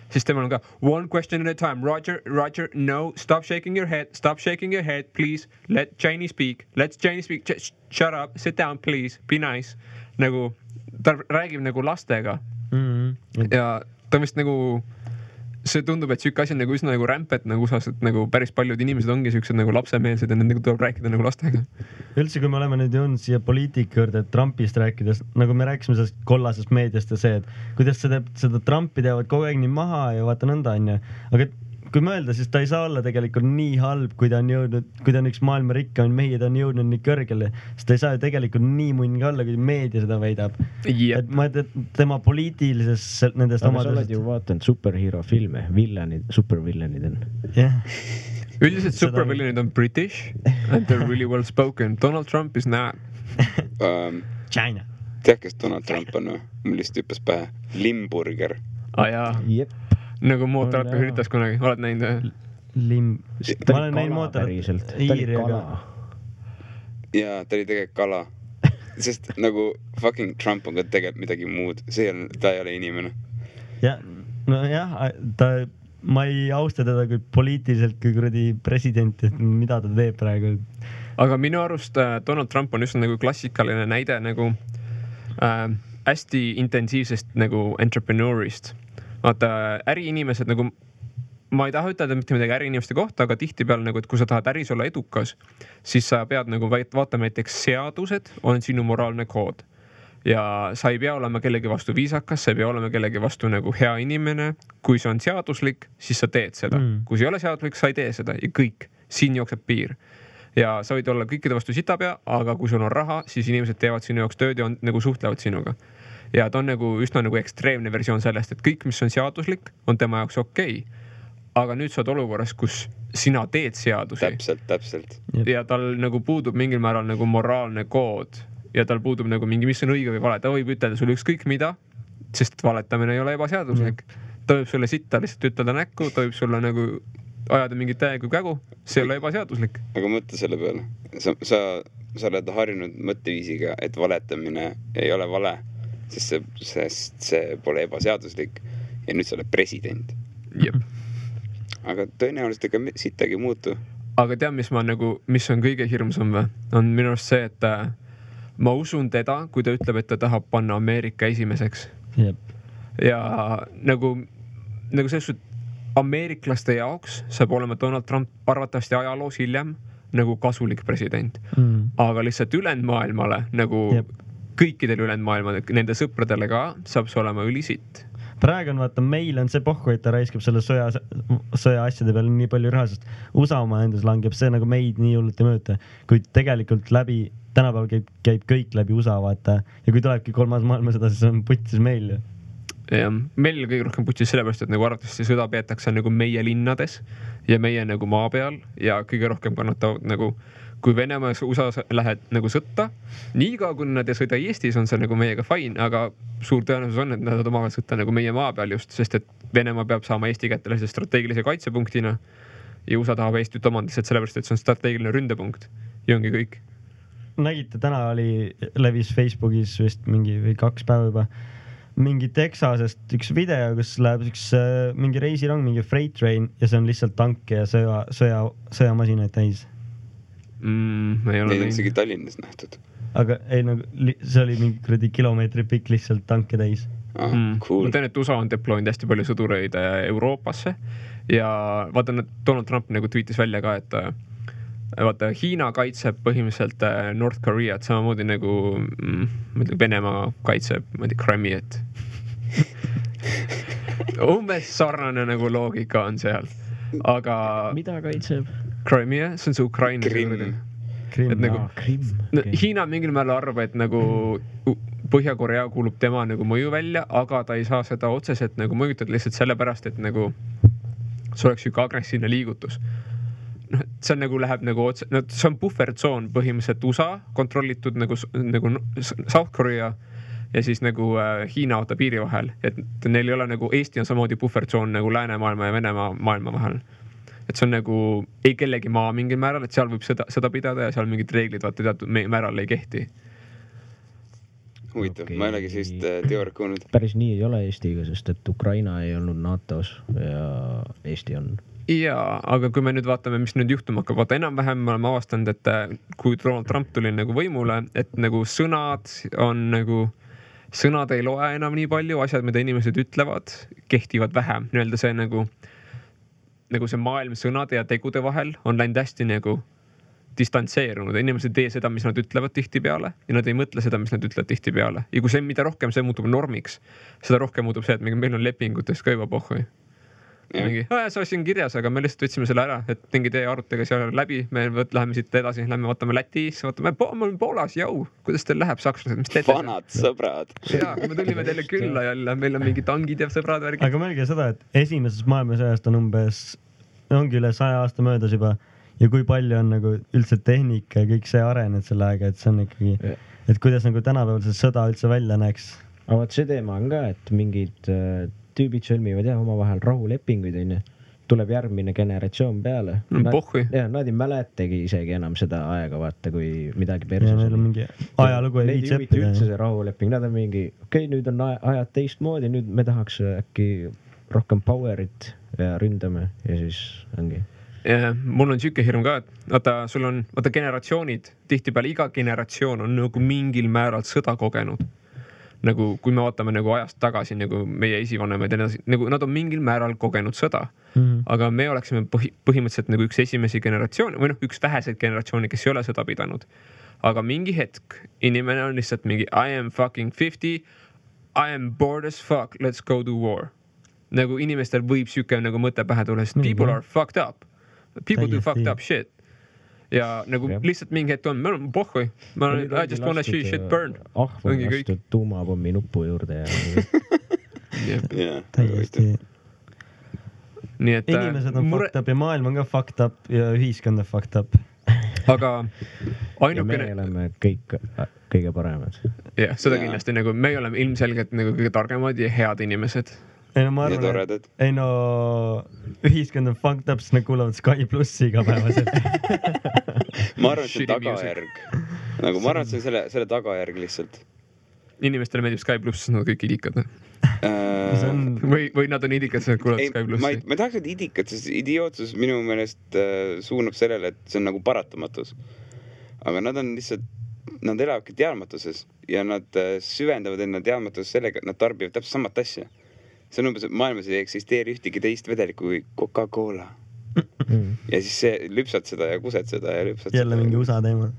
Siis temal on ka one question at a time. Roger, no, stop shaking your head, please. Let Jenny speak. Just shut up, sit down, please. Be nice. Nagu, ta räägib nagu lastega. Ja ta vist nagu, see tundub, et siuke asi on nagu üsna nagu rämpet nagu usas, et nagu päris paljud inimesed ongi siuksed nagu lapsemeelsed ja nendega tuleb rääkida nagu lastega. Üldse, kui me oleme nüüd jõudnud siia poliitika juurde, Trumpist rääkides, nagu me rääkisime sellest kollasest meediast ja see, et kuidas seda Trumpi teevad kogu aeg nii maha ja vaata nõnda on ja, aga kui mõelda, siis ta ei saa olla tegelikult nii halb, kui ta on jõudnud, kui ta on üks maailma rikkamaid mehi, ta on jõudnud nii kõrgele, sest ta ei saa ju tegelikult nii munn ka olla, kui meedia seda väidab. Et ma et tema poliitilises nendest omadusest. Aga sa oled ju vaatanud superhero filme, supervillanid on. Üldiselt supervillanid on British and they're really well spoken. Donald Trump is not. China. Tead, kes Donald Trump on või? Mul lihtsalt hüppas pähe. Limburger. Jaa. Jep. Nagu mootorat üritas kunagi, oled näinud? Ma olen näinud mootorat Iiriga. Jaa, ta oli tegelikult kala. Sest nagu fucking Trump on ka tegelikult midagi muud. Ta ei ole inimene. Ma ei austa teda kui poliitiliselt kui kuradi president, et mida ta teeb praegu. Aga minu arust Donald Trump on just nagu klassikaline näide nagu hästi intensiivsest nagu entrepreneurist. Vaata, äriinimesed nagu, ma ei taha ütelda mitte midagi äriinimeste kohta, aga tihtipeale nagu, et kui sa tahad äris olla edukas, siis sa pead nagu vaatama näiteks seadused on sinu moraalne kood. Ja sa ei pea olema kellegi vastu viisakas, sa ei pea olema kellegi vastu nagu hea inimene. Kui see on seaduslik, siis sa teed seda. Kui see ei ole seaduslik, sa ei tee seda ja kõik. Siin jookseb piir. Ja sa võid olla kõikide vastu sitapea, aga kui sul on raha, siis inimesed teevad sinu jaoks tööd ja nagu suhtlevad sinuga. Ja ta on nagu üsna nagu ekstreemne versioon sellest, et kõik, mis on seaduslik, on tema jaoks okei. Aga nüüd sa oled olukorras, kus sina teed seadusi. Täpselt. Ja tal nagu puudub mingil määral nagu moraalne kood ja tal puudub nagu mingi, mis on õige või vale. Ta võib ütelda sulle ükskõik mida, sest valetamine ei ole ebaseaduslik. Ta võib sulle sitta lihtsalt ütelda näkku, ta võib sulle nagu ajada mingit täiega kägu, see ei ole ebaseaduslik. Aga mõtle selle peale. Sa oled harjunud mõtteviisiga, et valetamine ei ole vale. Sest see pole ebaseaduslik ja nüüd sa oled president. Jep. Aga tõenäoliselt ega sittagi muutu. Aga tead, mis on kõige hirmsam või? On minu arust see, et ma usun teda, kui ta ütleb, et ta tahab panna Ameerika esimeseks. Jep. Ja nagu selles ameeriklaste jaoks saab olema Donald Trump arvatavasti ajaloos hiljem nagu kasulik president. Aga lihtsalt ülejäänud maailmale nagu kõikidel ülejäänud maailmal, nende sõpradele ka saab see olema ülisitt. Praegu on vaata, meil on see pohku, et ta raiskab selle sõja asjade peale nii palju raha, sest USA oma endas langeb see nagu meid nii hullult ei mõjuta. Kuid tegelikult tänapäeval käib kõik läbi USA vaata ja kui tulebki kolmas maailmasõda, siis on putsis meil. Ja meil kõige rohkem putsis sellepärast, et nagu arvatavasti sõda peetakse nagu meie linnades ja meie nagu maa peal ja kõige rohkem kannatavad nagu kui Venemaa ja USA lähed nagu sõtta, niiga kui nad ei sõida Eestis, on see nagu meiega fine, aga suur tõenäosus on, et nad omavahel sõtta nagu meie maa peal just, sest et Venemaa peab saama Eesti kätte strateegilise kaitsepunktina ja USA tahab Eestit omandist, sellepärast, et see on strateegiline ründepunkt ja ongi kõik. Nägite, täna levis Facebookis vist mingi 2 päeva juba mingi Texasest üks video, kus läheb mingi reisirong, mingi freight train ja see on lihtsalt tanke ja sõjamasinaid täis. Neid on isegi Tallinnas nähtud. aga ei nagu see oli mingi kuradi kilomeetri pikk lihtsalt tanke täis. Cool. Ma tean, et USA on deploynud hästi palju sõdureid Euroopasse ja vaata, Donald Trump nagu tweetis välja ka, et vaata, Hiina kaitseb põhimõtteliselt North Koreat samamoodi nagu Venemaa kaitseb, ma ei tea, Crimeat. Umbes sarnane nagu loogika on seal, aga mida kaitseb? Crimea, see on see Ukraina. Krimm. Et nagu, okay. Hiina mingil määral arvab, et nagu Põhja-Korea kuulub tema nagu mõju välja, aga ta ei saa seda otseselt nagu mõjutada lihtsalt sellepärast, et nagu see oleks üks agressiivne liigutus. No, see on nagu läheb nagu otse, no see on buffertsoon põhimõtteliselt USA kontrollitud nagu South Korea ja siis nagu Hiina oota piiri vahel, et neil ei ole nagu Eesti on samamoodi buffertsoon nagu läänemaailma ja Venemaa maailma vahel. Et see on nagu ei kellegi maa mingil määral, et seal võib seda pidada ja seal mingid reeglid vaata teatud määral ei kehti. Huvitav, okay. Ma ei olegi sellist teooriat kuulnud. Päris nii ei ole Eestiga, sest et Ukraina ei olnud NATO-s ja Eesti on. Jaa, aga kui me nüüd vaatame, mis nüüd juhtuma hakkab, vaata enam-vähem me oleme avastanud, et kui Donald Trump tuli nagu võimule, et nagu sõnad ei loe enam nii palju, asjad, mida inimesed ütlevad, kehtivad vähem. Nii-öelda see nagu see maailm sõnade ja tegude vahel on läinud hästi nagu distantseerunud. Inimesed ei tee seda, mis nad ütlevad tihti peale ja nad ei mõtle seda, mis nad ütlevad tihti peale. Ja kui see, mida rohkem see muutub normiks, seda rohkem muutub see, et meil on lepingutes ka juba pohhui. Mingi, see asi on kirjas, aga me lihtsalt võtsime selle ära, et mingi tee arutage seal läbi, me läheme siit edasi, lähme vaatame Lätis, vaatame Poolas, jau, kuidas teil läheb sakslased, mis teete? Vanad sõbrad. Jaa, me tulime teile külla jälle, meil on mingi tangid ja sõbrad värgid. Aga mõelge seda, et esimeses maailmasõjast on ongi üle 100 aasta möödas juba ja kui palju on nagu üldse tehnika ja kõik see arenenud selle aega, et see on ikkagi, et kuidas nagu tänapäeval see sõda üldse välja näeks. Aga see teema on ka, et mingid tüübid sõlmivad omavahel rahulepinguid, tuleb järgmine generatsioon peale. Nad ei mäletagi isegi enam seda aega, vaata, kui midagi perses oli. Mingi ajalugu ei viitsi õppida. Üldse see rahuleping, nad on mingi, nüüd on ajad teistmoodi, nüüd me tahaks äkki rohkem powerit ja ründame ja siis ongi. Ja, mul on siuke hirm ka, et vaata generatsioonid, tihtipeale iga generatsioon on nagu mingil määral sõda kogenud. Nagu kui me vaatame nagu ajast tagasi, nagu meie esivanemad, nagu nad on mingil määral kogenud sõda. Aga me oleksime põhimõtteliselt nagu üks esimesi generatsioone või üks väheseid generatsiooni, kes ei ole sõda pidanud. Aga mingi hetk inimene on lihtsalt mingi I am fucking 50, I am bored as fuck, let's go to war. Nagu inimestel võib siuke nagu mõte pähe tulla, sest people are fucked up. People do fucked up shit. Ja nagu lihtsalt mingi hetk on, me oleme pohhui. I just wanna see shit burn. Ahvel lastud tuumapommi nupu juurde ja täiesti. Inimesed on fucked up ja maailm on ka fucked up ja ühiskond on fucked up. Aga ainukene... Ja me oleme kõik kõige paremad. Jah, seda kindlasti nagu me oleme ilmselgelt nagu kõige targemad ja head inimesed. Ma arvan, ühiskond on fucked up, sest nad kuulavad Sky Plussi igapäevaselt. Ma arvan, et see on tagajärg. Nagu ma arvan, et see on selle tagajärg lihtsalt. Inimestele meeldib Sky Plus, sest nad kõik idikad. Või nad on idikad, sest nad kuulavad Sky Plussi. Ma tahaks, et idikad, sest idiootsus minu meelest suunab sellele, et see on nagu paratamatus. Aga nad on lihtsalt, nad elavadki teadmatuses ja nad süvendavad enda teadmatuses sellega, et nad tarbivad täpselt samat asja. See on umbes, et maailmas ei eksisteeri ühtegi teist vedelikku kui Coca-Cola. Ja siis see lüpsad seda ja kused seda ja lüpsad jälle seda. Mingi USA teema.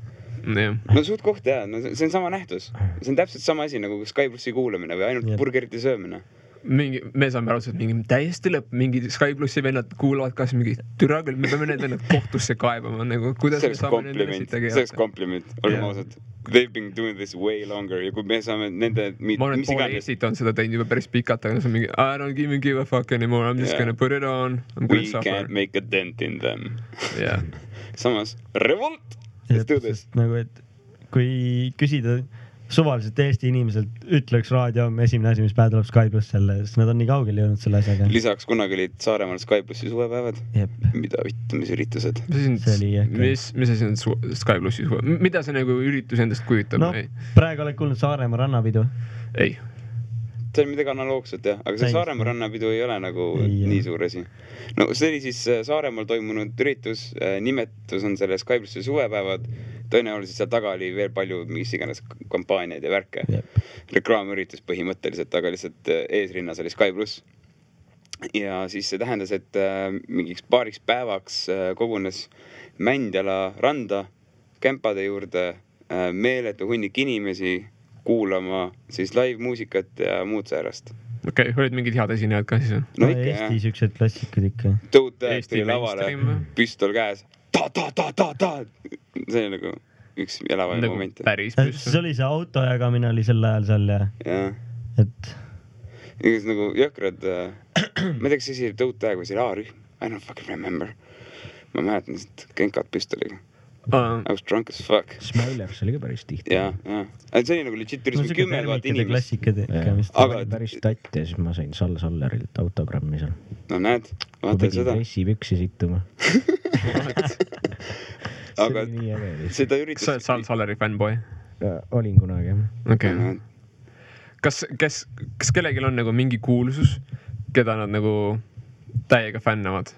No suht koht jah, see on sama nähtus. See on täpselt sama asi nagu Sky Plussi kuulamine või ainult burgerite söömine. Me saame aru, et mingi täiesti lõpp, mingi Sky Plussi vennad kuulavad kas mingi türa küll, me peame need vennad kohtusse kaebama, nagu kuidas me saame nendele siit tegema. See oleks kompliment, oleme ausad. They've been doing this way longer ja kui me saame nende... Ma olen poole Eestit on seda teinud juba päris pikalt, aga see on mingi I don't give a fuck anymore, I'm just gonna put it on. We can't make a dent in them. Samas, revolt! Let's do this. Nagu, et kui küsida suvaliselt Eesti inimeselt ütleks raadio esimene asi, mis päev tuleb Sky Plus selle, sest nad on nii kaugel jõudnud selle asjaga. Lisaks kunagi olid Saaremaal Sky Plussi suvepäevad. Mida mis üritused? Mis asi on Sky Plussi suve? Mida see nagu üritus endast kujutab? No, praegu oled kuulnud Saaremaa rannapidu? Ei. See on midagi analoogset jah, aga see Saaremaa rannapidu ei ole nagu nii suur asi. No see oli siis Saaremaal toimunud üritus, nimetus on selle Sky Plussi suvepäevad, tõenäoliselt seal taga oli veel palju mis iganes kampaaniaid ja värke. Reklaamüritus põhimõtteliselt, aga lihtsalt eesrinnas oli Sky Pluss. Ja siis see tähendas, et mingiks paariks päevaks kogunes Mändjala randa kämpade juurde meeletu hunnik inimesi kuulama siis live-muusikat ja muud säärast. Okei, olid mingid head esinejad ka siis? No ikka, Eesti siuksed klassikud ikka. Tõutajad tuli lavale, püstol käes. Ta. See oli nagu üks elavaja nagu moment. Päris püstol. See oli see auto jagamine oli sel ajal seal ja. Et... Igas nagu jõhkrad, ma ei tea, kas see tõutaja või see A-rühm. I don't fucking remember. Ma mäletan lihtsalt kenkad püstoliga. I was drunk as fuck. Smilers oli ka päris tihti. Ja. See oli nagu legit turismi 10 000 inimest. Aga päris tatt ja siis ma sain Sallerilt autogrammi seal. No näed, vaatad seda. Dressipüksi sittuma. Aga seda üritas... Sa oled Salleri fanboy? Olin kunagi, jah. Okei. Kas kellegil on nagu mingi kuulsus, keda nad nagu täiega fännavad?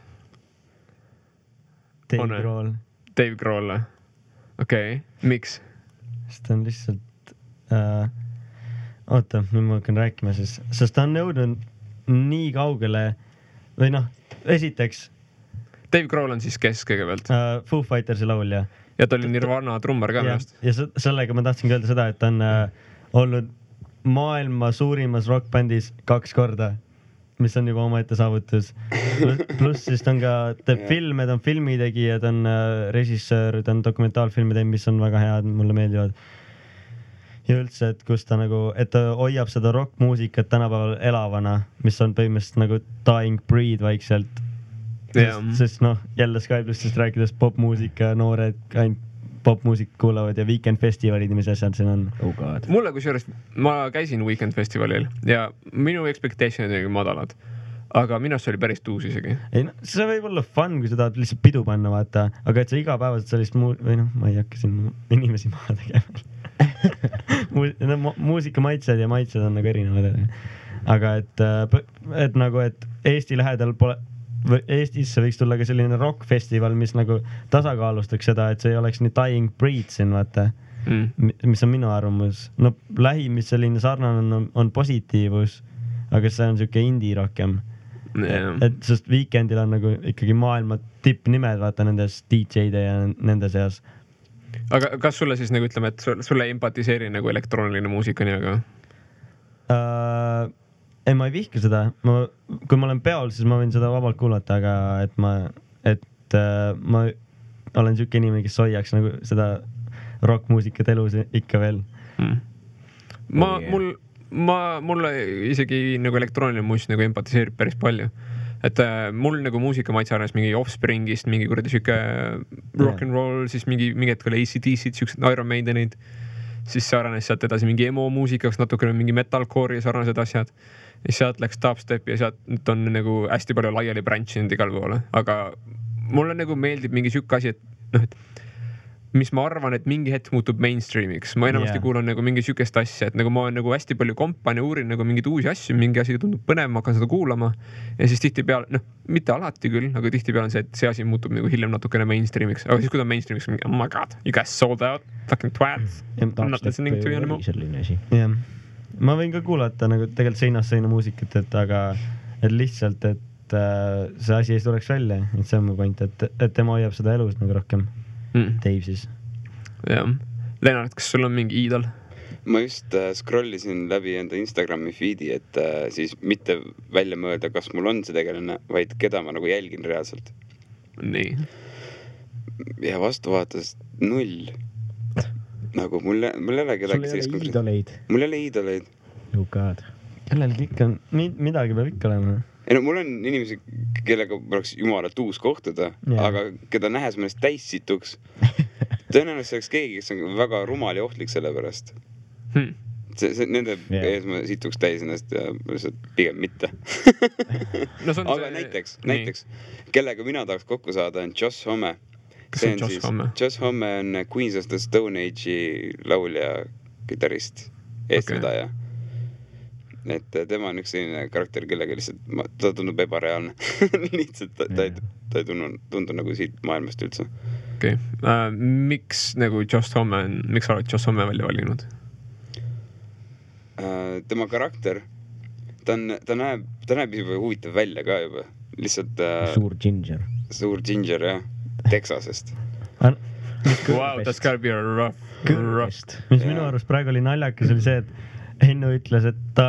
Dave Grohl. Okei. Miks? Sest ta on lihtsalt... Oota, nüüd ma hakkan rääkima siis. Sest ta on nõudnud nii kaugele... Või noh, esiteks... Dave Grohl on siis kes kõigepealt? Foo Fightersi laulja. Ja ta oli Nirvana trummar ka millest. Ja sellega ma tahtsin öelda seda, et ta on olnud maailma suurimas rockbändis 2 korda, mis on juba omaette saavutus. Pluss siis ta on ka filme, ta on filmitegija, ta on režissöör, ta on dokumentaalfilmide, mis on väga head, mulle meeldivad. Ja üldse, et kus ta nagu, et ta hoiab seda rockmuusikat tänapäeval elavana, mis on põhimõtteliselt nagu dying breed vaikselt. Sest noh, jälle Sky Plussist rääkides popmuusika, noored ainult popmuusik kuulavad ja Weekend Festivalid, mis asjad siin on. Oh God. Mulle kusjuures, ma käisin Weekend Festivalil ja minu expectationid olid madalad, aga minust oli päris tuus isegi. Ei, no, see võib olla fun, kui sa tahad lihtsalt pidu panna, vaata, aga et sa igapäevaselt sellist või noh, ma ei hakka siin inimesi maha tegema. Muusika maitsed ja maitsed on nagu erinevad. Aga et nagu, et Eesti lähedal pole Eestisse võiks tulla ka selline rockfestival, mis nagu tasakaalustaks seda, et see ei oleks nii dying breed siin, vaata, mis on minu arvamus. No lähim, mis selline sarnane on positiivus, aga see on siuke indie rohkem. Et sest Weekendil on nagu ikkagi maailma tippnimed, vaata, nendes DJ-de ja nende seas. Aga kas sulle siis nagu ütleme, et sulle empatiseeri nagu elektrooniline muusika nii aga? Ei, ma ei vihka seda. Kui ma olen peol, siis ma võin seda vabalt kuulata, aga et ma olen siuke inimene, kes hoiaks nagu seda rockmuusikat elus ikka veel. Mulle isegi nagu elektrooniline muusik nagu empatiseerib päris palju. Et mul nagu muusika maitse arvanes mingi Offspringist, mingi kuradi siuke rock'n'roll, siis mingi hetk oli AC/DC, siuksed Iron Maidenid. Siis see arenes sealt edasi mingi emo muusikaks, natukene mingi metalcore ja sarnased asjad. Ja sealt läks dubstep ja sealt on nagu hästi palju laiali branchinud igal poole. Aga mulle nagu meeldib mingi siuke asi, et noh, et mis ma arvan, et mingi hetk muutub mainstreamiks. Ma enamasti kuulan nagu mingi siukest asja, et nagu ma olen nagu hästi palju kompan ja uurin nagu mingeid uusi asju, mingi asi tundub põnev, ma hakkan seda kuulama. Ja siis tihtipeale, noh, mitte alati küll, aga tihtipeale on see, et see asi muutub nagu hiljem natukene mainstreamiks. Aga siis kui ta mainstreamiks, mingi, oh my god, you guys sold out, fucking twats. I'm not listening to you anymore. Ma võin ka kuulata nagu tegelikult seinast seina muusikat, aga et lihtsalt, et see asi ei tuleks välja. Et see on mu point, et tema hoiab seda elus nagu rohkem. Dave siis. Jah. Lennart, kas sul on mingi iidol? Ma just scrollisin läbi enda Instagrami feedi, et siis mitte välja mõelda, kas mul on see tegelane, vaid keda ma nagu jälgin reaalselt. Nii. Ja vastu vaatas 0. Nagu mul ei ole kedagi sellist iidoleid. Mul ei ole iidoleid. Oh God. Kellelgi ikka on, midagi peab ikka olema. Ei no mul on inimesi, kellega oleks jumalat uus kohtuda, aga keda nähes mõnest täis situks. Tõenäoliselt see oleks keegi, kes on väga rumal ja ohtlik selle pärast. Nende ees ma situks täis ennast ja pigem mitte. Aga näiteks, kellega mina tahaks kokku saada, on Josh Homme. Kes on Josh Homme? Josh Homme on Queens of the Stone Age'i laulja, kitarrist, eestvedaja. Et tema on üks selline karakter, kellega lihtsalt ta tundub ebareaalne. Lihtsalt ta ei tundu nagu siit maailmast üldse. okei. Miks nagu Joss Homme, miks sa oled Joss Homme välja valinud? Tema karakter, ta näeb juba huvitav välja ka juba. Lihtsalt suur ginger. Suur ginger, jah. Texasest. Wow, that's gotta be a rough. Mis minu arust praegu oli naljakas, oli see, et Hennu ütles, et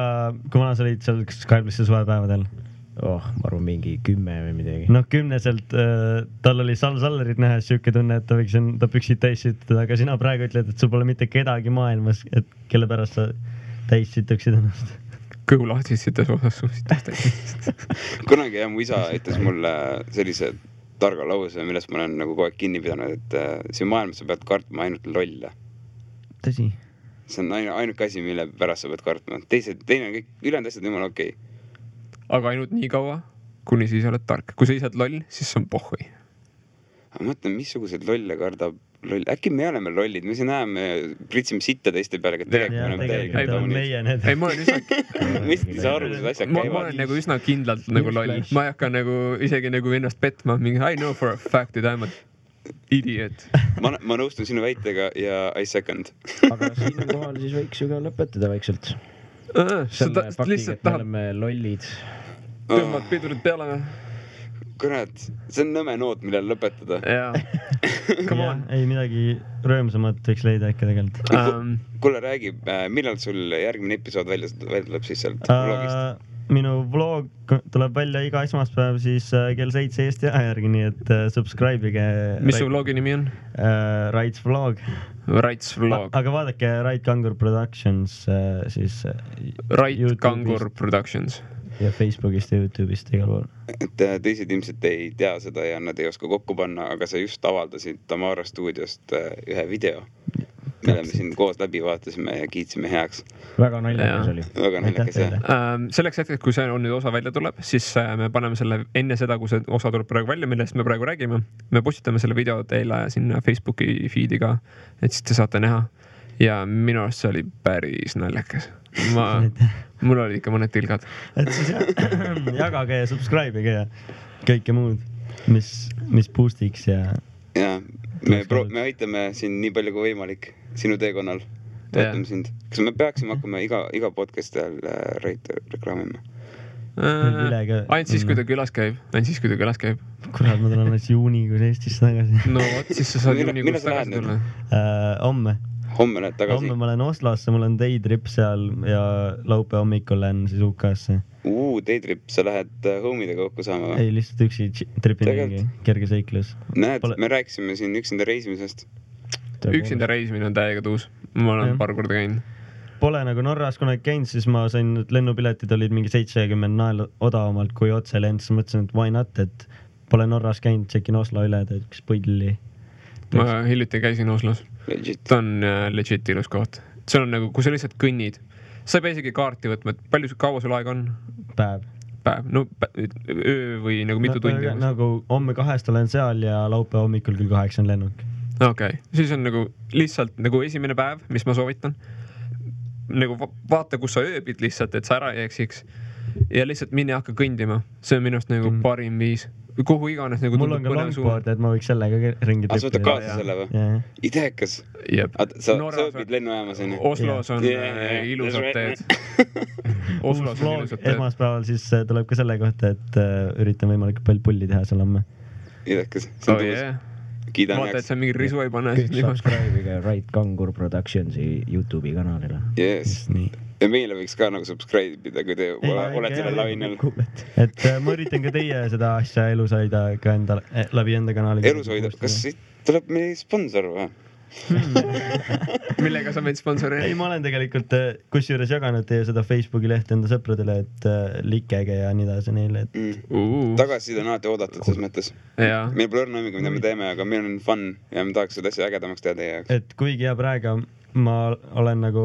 kui vana sa olid seal Skype'isse suvepäevadel? Ma arvan mingi 10 või midagi. Noh, 10-selt tal oli Sallerit nähes siuke tunne, et ta võiks enda püksid täis süttada, aga sina praegu ütled, et sul pole mitte kedagi maailmas, et kelle pärast sa täis sütuksid ennast. Kõhu lahtissites osas suusitas täis. Kunagi jah, mu isa ütles mulle sellise targa lause, millest ma olen nagu kogu aeg kinni pidanud, et siin maailmas sa pead kartma ainult lolle. Tõsi. See on ainuke asi, mille pärast sa pead kartma. Teine on kõik, ülejäänud asjad jumala okei. Aga ainult nii kaua, kuni siis oled tark. Kui sa ise oled loll, siis see on pohhui. Ma mõtlen, missugused lolle kardab loll. Äkki me oleme lollid, me siin näeme, pritsime sitta teiste peale, et tegelikult oleme meie need. Ei, ma olen üsna... Mis sa arvused asjad käivad? Ma olen nagu üsna kindlalt nagu loll. Ma ei hakka nagu isegi nagu ennast petma. I know for a fact, et I'm a idiot. Ma nõustun sinu väitega ja I second. Aga siin kohal siis võiks ju ka lõpetada vaikselt. Selle faktiga, et me oleme lollid. Tõmbad pidurid peale või? Kurat, see on nõme noot, millel lõpetada. Jaa. Come on. Ei, midagi rõõmsamat võiks leida äkki tegelikult. Kuule, räägib, millal sul järgmine episood välja tuleb siis sealt vlogist? Minu vlog tuleb välja iga esmaspäev siis kell 7 Eesti aja järgi, nii et subscribe'ige. Mis su vlogi nimi on? Raits vlog. Raits vlog. Aga vaadake Rait Kangur Productions siis Rait Kangur Productions. Ja Facebookist ja YouTube'ist igal pool. Et teised ilmselt ei tea seda ja nad ei oska kokku panna, aga sa just avaldasid Tamara stuudiost ühe video, mille me siin koos läbi vaatasime ja kiitsime heaks. Väga naljakas oli. Väga naljakas, jah. Selleks hetkeks, kui see on nüüd osa välja tuleb, siis me paneme selle enne seda, kui see osa tuleb praegu välja, millest me praegu räägime. Me postitame selle video teile sinna Facebooki feed'i ka, et siis te saate näha. Ja minu arust see oli päris naljakas. Mul oli ikka mõned tilgad. Et siis jagage ja subscribe'ige ja kõike muud, mis boostiks ja... Ja, me aitame siin nii palju kui võimalik sinu teekonnal. Toetame sind. Kas me peaksime hakkama iga podcasti ajal reklaamima? Ainult siis, kui ta külas käib. Kurat, ma tulen alles juunikuus Eestisse tagasi. No vot, siis sa saad juunikuus tagasi tulla. Homme lähed tagasi? Homme ma lähen Oslosse, mul on daytrip seal ja laupe hommikul lähen siis UK-sse. Daytrip, sa lähed homidega kokku saama? Ei, lihtsalt üksi tripin mingi kerge seiklus. Näed, me rääkisime siin üksinda reisimisest. Üksinda reisimine on täiega tuus. Ma olen paar korda käinud. Pole nagu Norras kunagi käinud, siis ma sain, et lennupiletid olid mingi 70 nael odavamalt kui otse lend, siis mõtlesin, et why not, et pole Norras käinud, tšekin Oslo üle, et üks põlli. Ma hiljuti käisin Oslos. Ta on legit ilus koht. See on nagu, kui sa lihtsalt kõnnid, sa ei pea isegi kaarti võtma, et kaua sul aeg on? Päev. No öö või nagu mitu tundi? Nagu homme 2 olen seal ja laupe hommikul küll 8 on lennuk. Okei, siis on nagu lihtsalt nagu esimene päev, mis ma soovitan. Nagu vaata, kus sa ööbid lihtsalt, et sa ära ei eksiks. Ja lihtsalt minne hakka kõndima. See on minust nagu parim viis. Kuhu iganes nagu mul on ka longboard, et ma võiks sellega ringi tripida. Sa võtad kaasa selle või? Ideekas. Sa õpid lennujaamas. Oslos on ilusad teed. Oslos on ilusad teed. Esmaspäeval siis tuleb ka selle kohta, et üritan võimalikult palju pulli teha seal homme. Ideekas. Vaata, et sa mingi risu ei pane. Kõik subscribe'iga Rait Kangur Productionsi YouTube'i kanalile. Yes. Ja meile võiks ka nagu subscribe'ida, kui te olete selle lainel. Et ma üritan ka teie seda asja elus hoida ka läbi enda kanali. Elus hoida? Kas tuleb meil sponsor või? Millega sa meid sponsori? Ei, ma olen tegelikult kusjuures jaganud teie seda Facebooki lehte enda sõpradele, et likege ja nii edasi neile. Tagasiside on alati oodatud selles mõttes. Meil pole õrna õmmiga, mida me teeme, aga meil on fun ja me tahaks seda asja ägedamaks teha teie jaoks. Et kuigi ja praegu ma olen nagu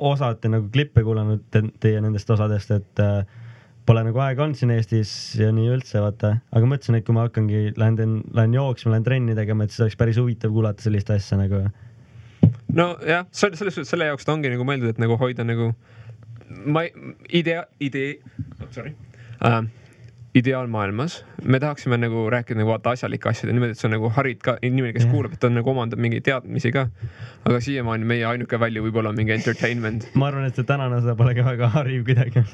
osati nagu klippe kuulanud teie nendest osadest, et pole nagu aega olnud siin Eestis ja nii üldse, vaata. Aga mõtlesin, et kui ma hakkangi, lähen jooksma, lähen trenni tegema, et siis oleks päris huvitav kuulata sellist asja nagu. No jah, selle jaoks ta ongi nagu mõeldud, et nagu ideaalmaailmas me tahaksime nagu rääkida nagu vaata asjalike asjade niimoodi, et see on nagu harid ka inimene, kes kuulab, et on nagu omandab mingi teadmisi ka. Aga siiamaani meie ainuke välja võib-olla mingi entertainment. Ma arvan, et see tänane osa pole ka väga hariv kuidagi.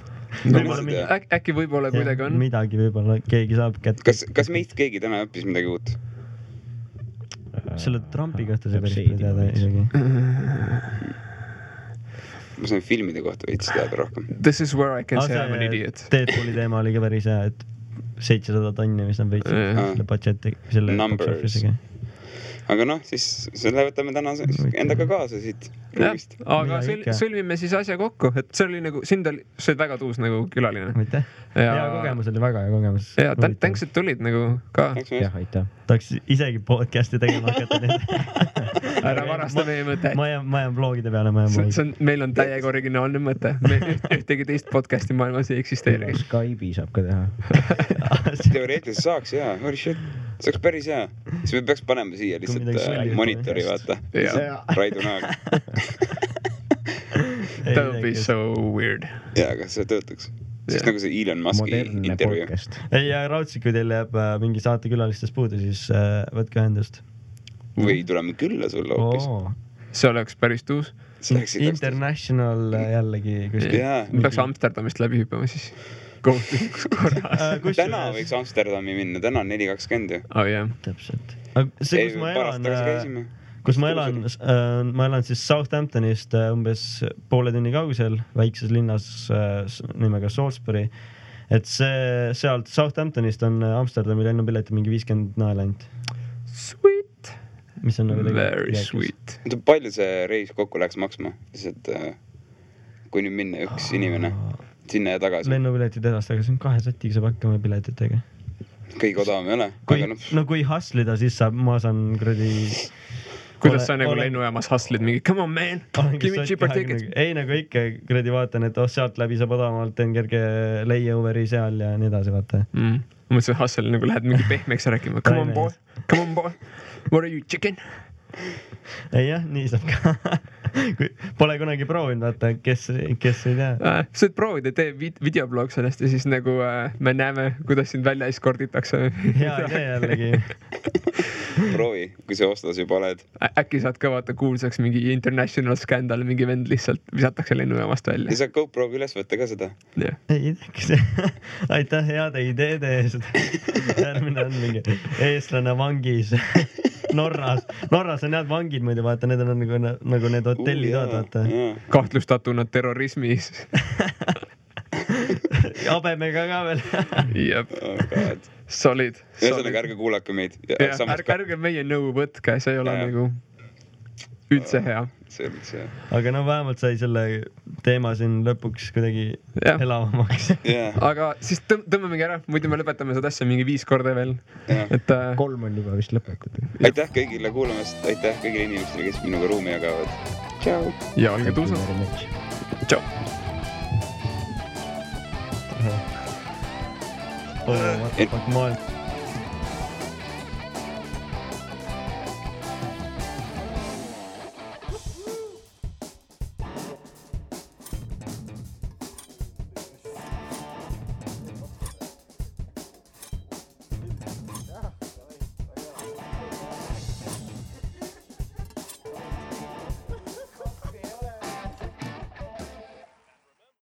Äkki võib-olla kuidagi on. Midagi võib-olla keegi saab kätte. Kas meist keegi täna õppis midagi uut? Selle Trumpi kohta see päris palju teada isegi. Ma sain filmide kohta veits teada rohkem. This is where I can say I'm an idiot. Deadpooli teema oli ka päris hea, et 700 tonni, mis nad võitsid selle budgeti, selle box office'iga. Aga noh, siis selle võtame täna endaga kaasa siit ruumist. Aga sõlmime siis asja kokku, et see oli nagu, sind oli, see oli väga tuus nagu külaline. Aitäh. Hea kogemus oli, väga hea kogemus. Ja thanks, et tulid nagu ka. Jah, aitäh. Tahaks isegi podcasti tegema hakata. Ära varasta meie mõte. Ma jään vlogide peale, meil on täiega originaalne mõte. Ühtegi teist podcasti maailmas ei eksisteeri. Skype'i saab ka teha. Teoreetiliselt saaks, jaa. Holy shit. See oleks päris hea. Siis me peaks panema siia lihtsalt monitori, vaata. Raidu näoga. That would be so weird. Jaa, aga see töötaks. Siis nagu see Elon Muski intervjuu. Ei, ja raudselt, kui teil jääb mingi saatekülalistest puudu, siis võtke ühendust. Või tuleme külla sulle hoopis. See oleks päris tuus. International jällegi. Peaks Amsterdamist läbi hüppama siis. Kohtulikus korras. Täna võiks Amsterdami minna, täna on 4.20 ju. Oh jah. Täpselt. See, kus ma elan siis Southamptonist umbes poole tunni kaugusel väikses linnas nimega Salisbury. Et sealt Southamptonist on Amsterdami lennupileti mingi 50 naela ainult. Sweet. Mis on nagu very sweet. Palju see reis kokku läheks maksma? Kui nüüd minna üks inimene sinna ja tagasi. Lennupiletid edast, aga see on 2 sätiga saab hakkama piletitega. Kõige odavam ei ole. No kui hustlida, siis ma saan kredi... Kuidas sa nagu lennujaamas hustlid mingi, come on man, give me cheaper tickets. Ei nagu ikka kredi vaatan, et sealt läbi saab odavamalt, teen kerge layoveri seal ja nii edasi, vaata. Ma mõtlesin, hustle nagu lähed mingi pehmeks rääkima. Come on boy, what are you, chicken? Ei jah, nii saab ka. Pole kunagi proovinud, vaata, kes ei tea. Sa võid proovida, tee videoblog sellest ja siis nagu me näeme, kuidas sind välja eskorditakse. Hea idee jällegi. Proovi, kui sa ostas juba oled. Äkki saad ka vaata kuulsaks mingi international scandal, mingi vend lihtsalt visatakse lennujaamast välja. Ja saad GoPro'ga üles võtta ka seda. Ei ideks. Aitäh heade ideede eest. Järgmine on mingi eestlane vangis Norras on head vangid muidu, vaata, need on nagu need hotellid, vaata. Kahtlustatuna terrorismis. Habemega ka veel. Jep. Solid. Ühesõnaga, ärge kuulake meid. Ärge meie nõu võtke, see ei ole nagu üldse hea. Aga no vähemalt sai selle teema siin lõpuks kuidagi elavamaks. Aga siis tõmbamegi ära, muidu me lõpetame seda asja mingi 5 korda veel. 3 on juba vist lõpetatud. Aitäh kõigile kuulamast, aitäh kõigile inimestele, kes minuga ruumi jagavad. Tšau. Ja olge tuusad. Tšau. What the fuck, maailm.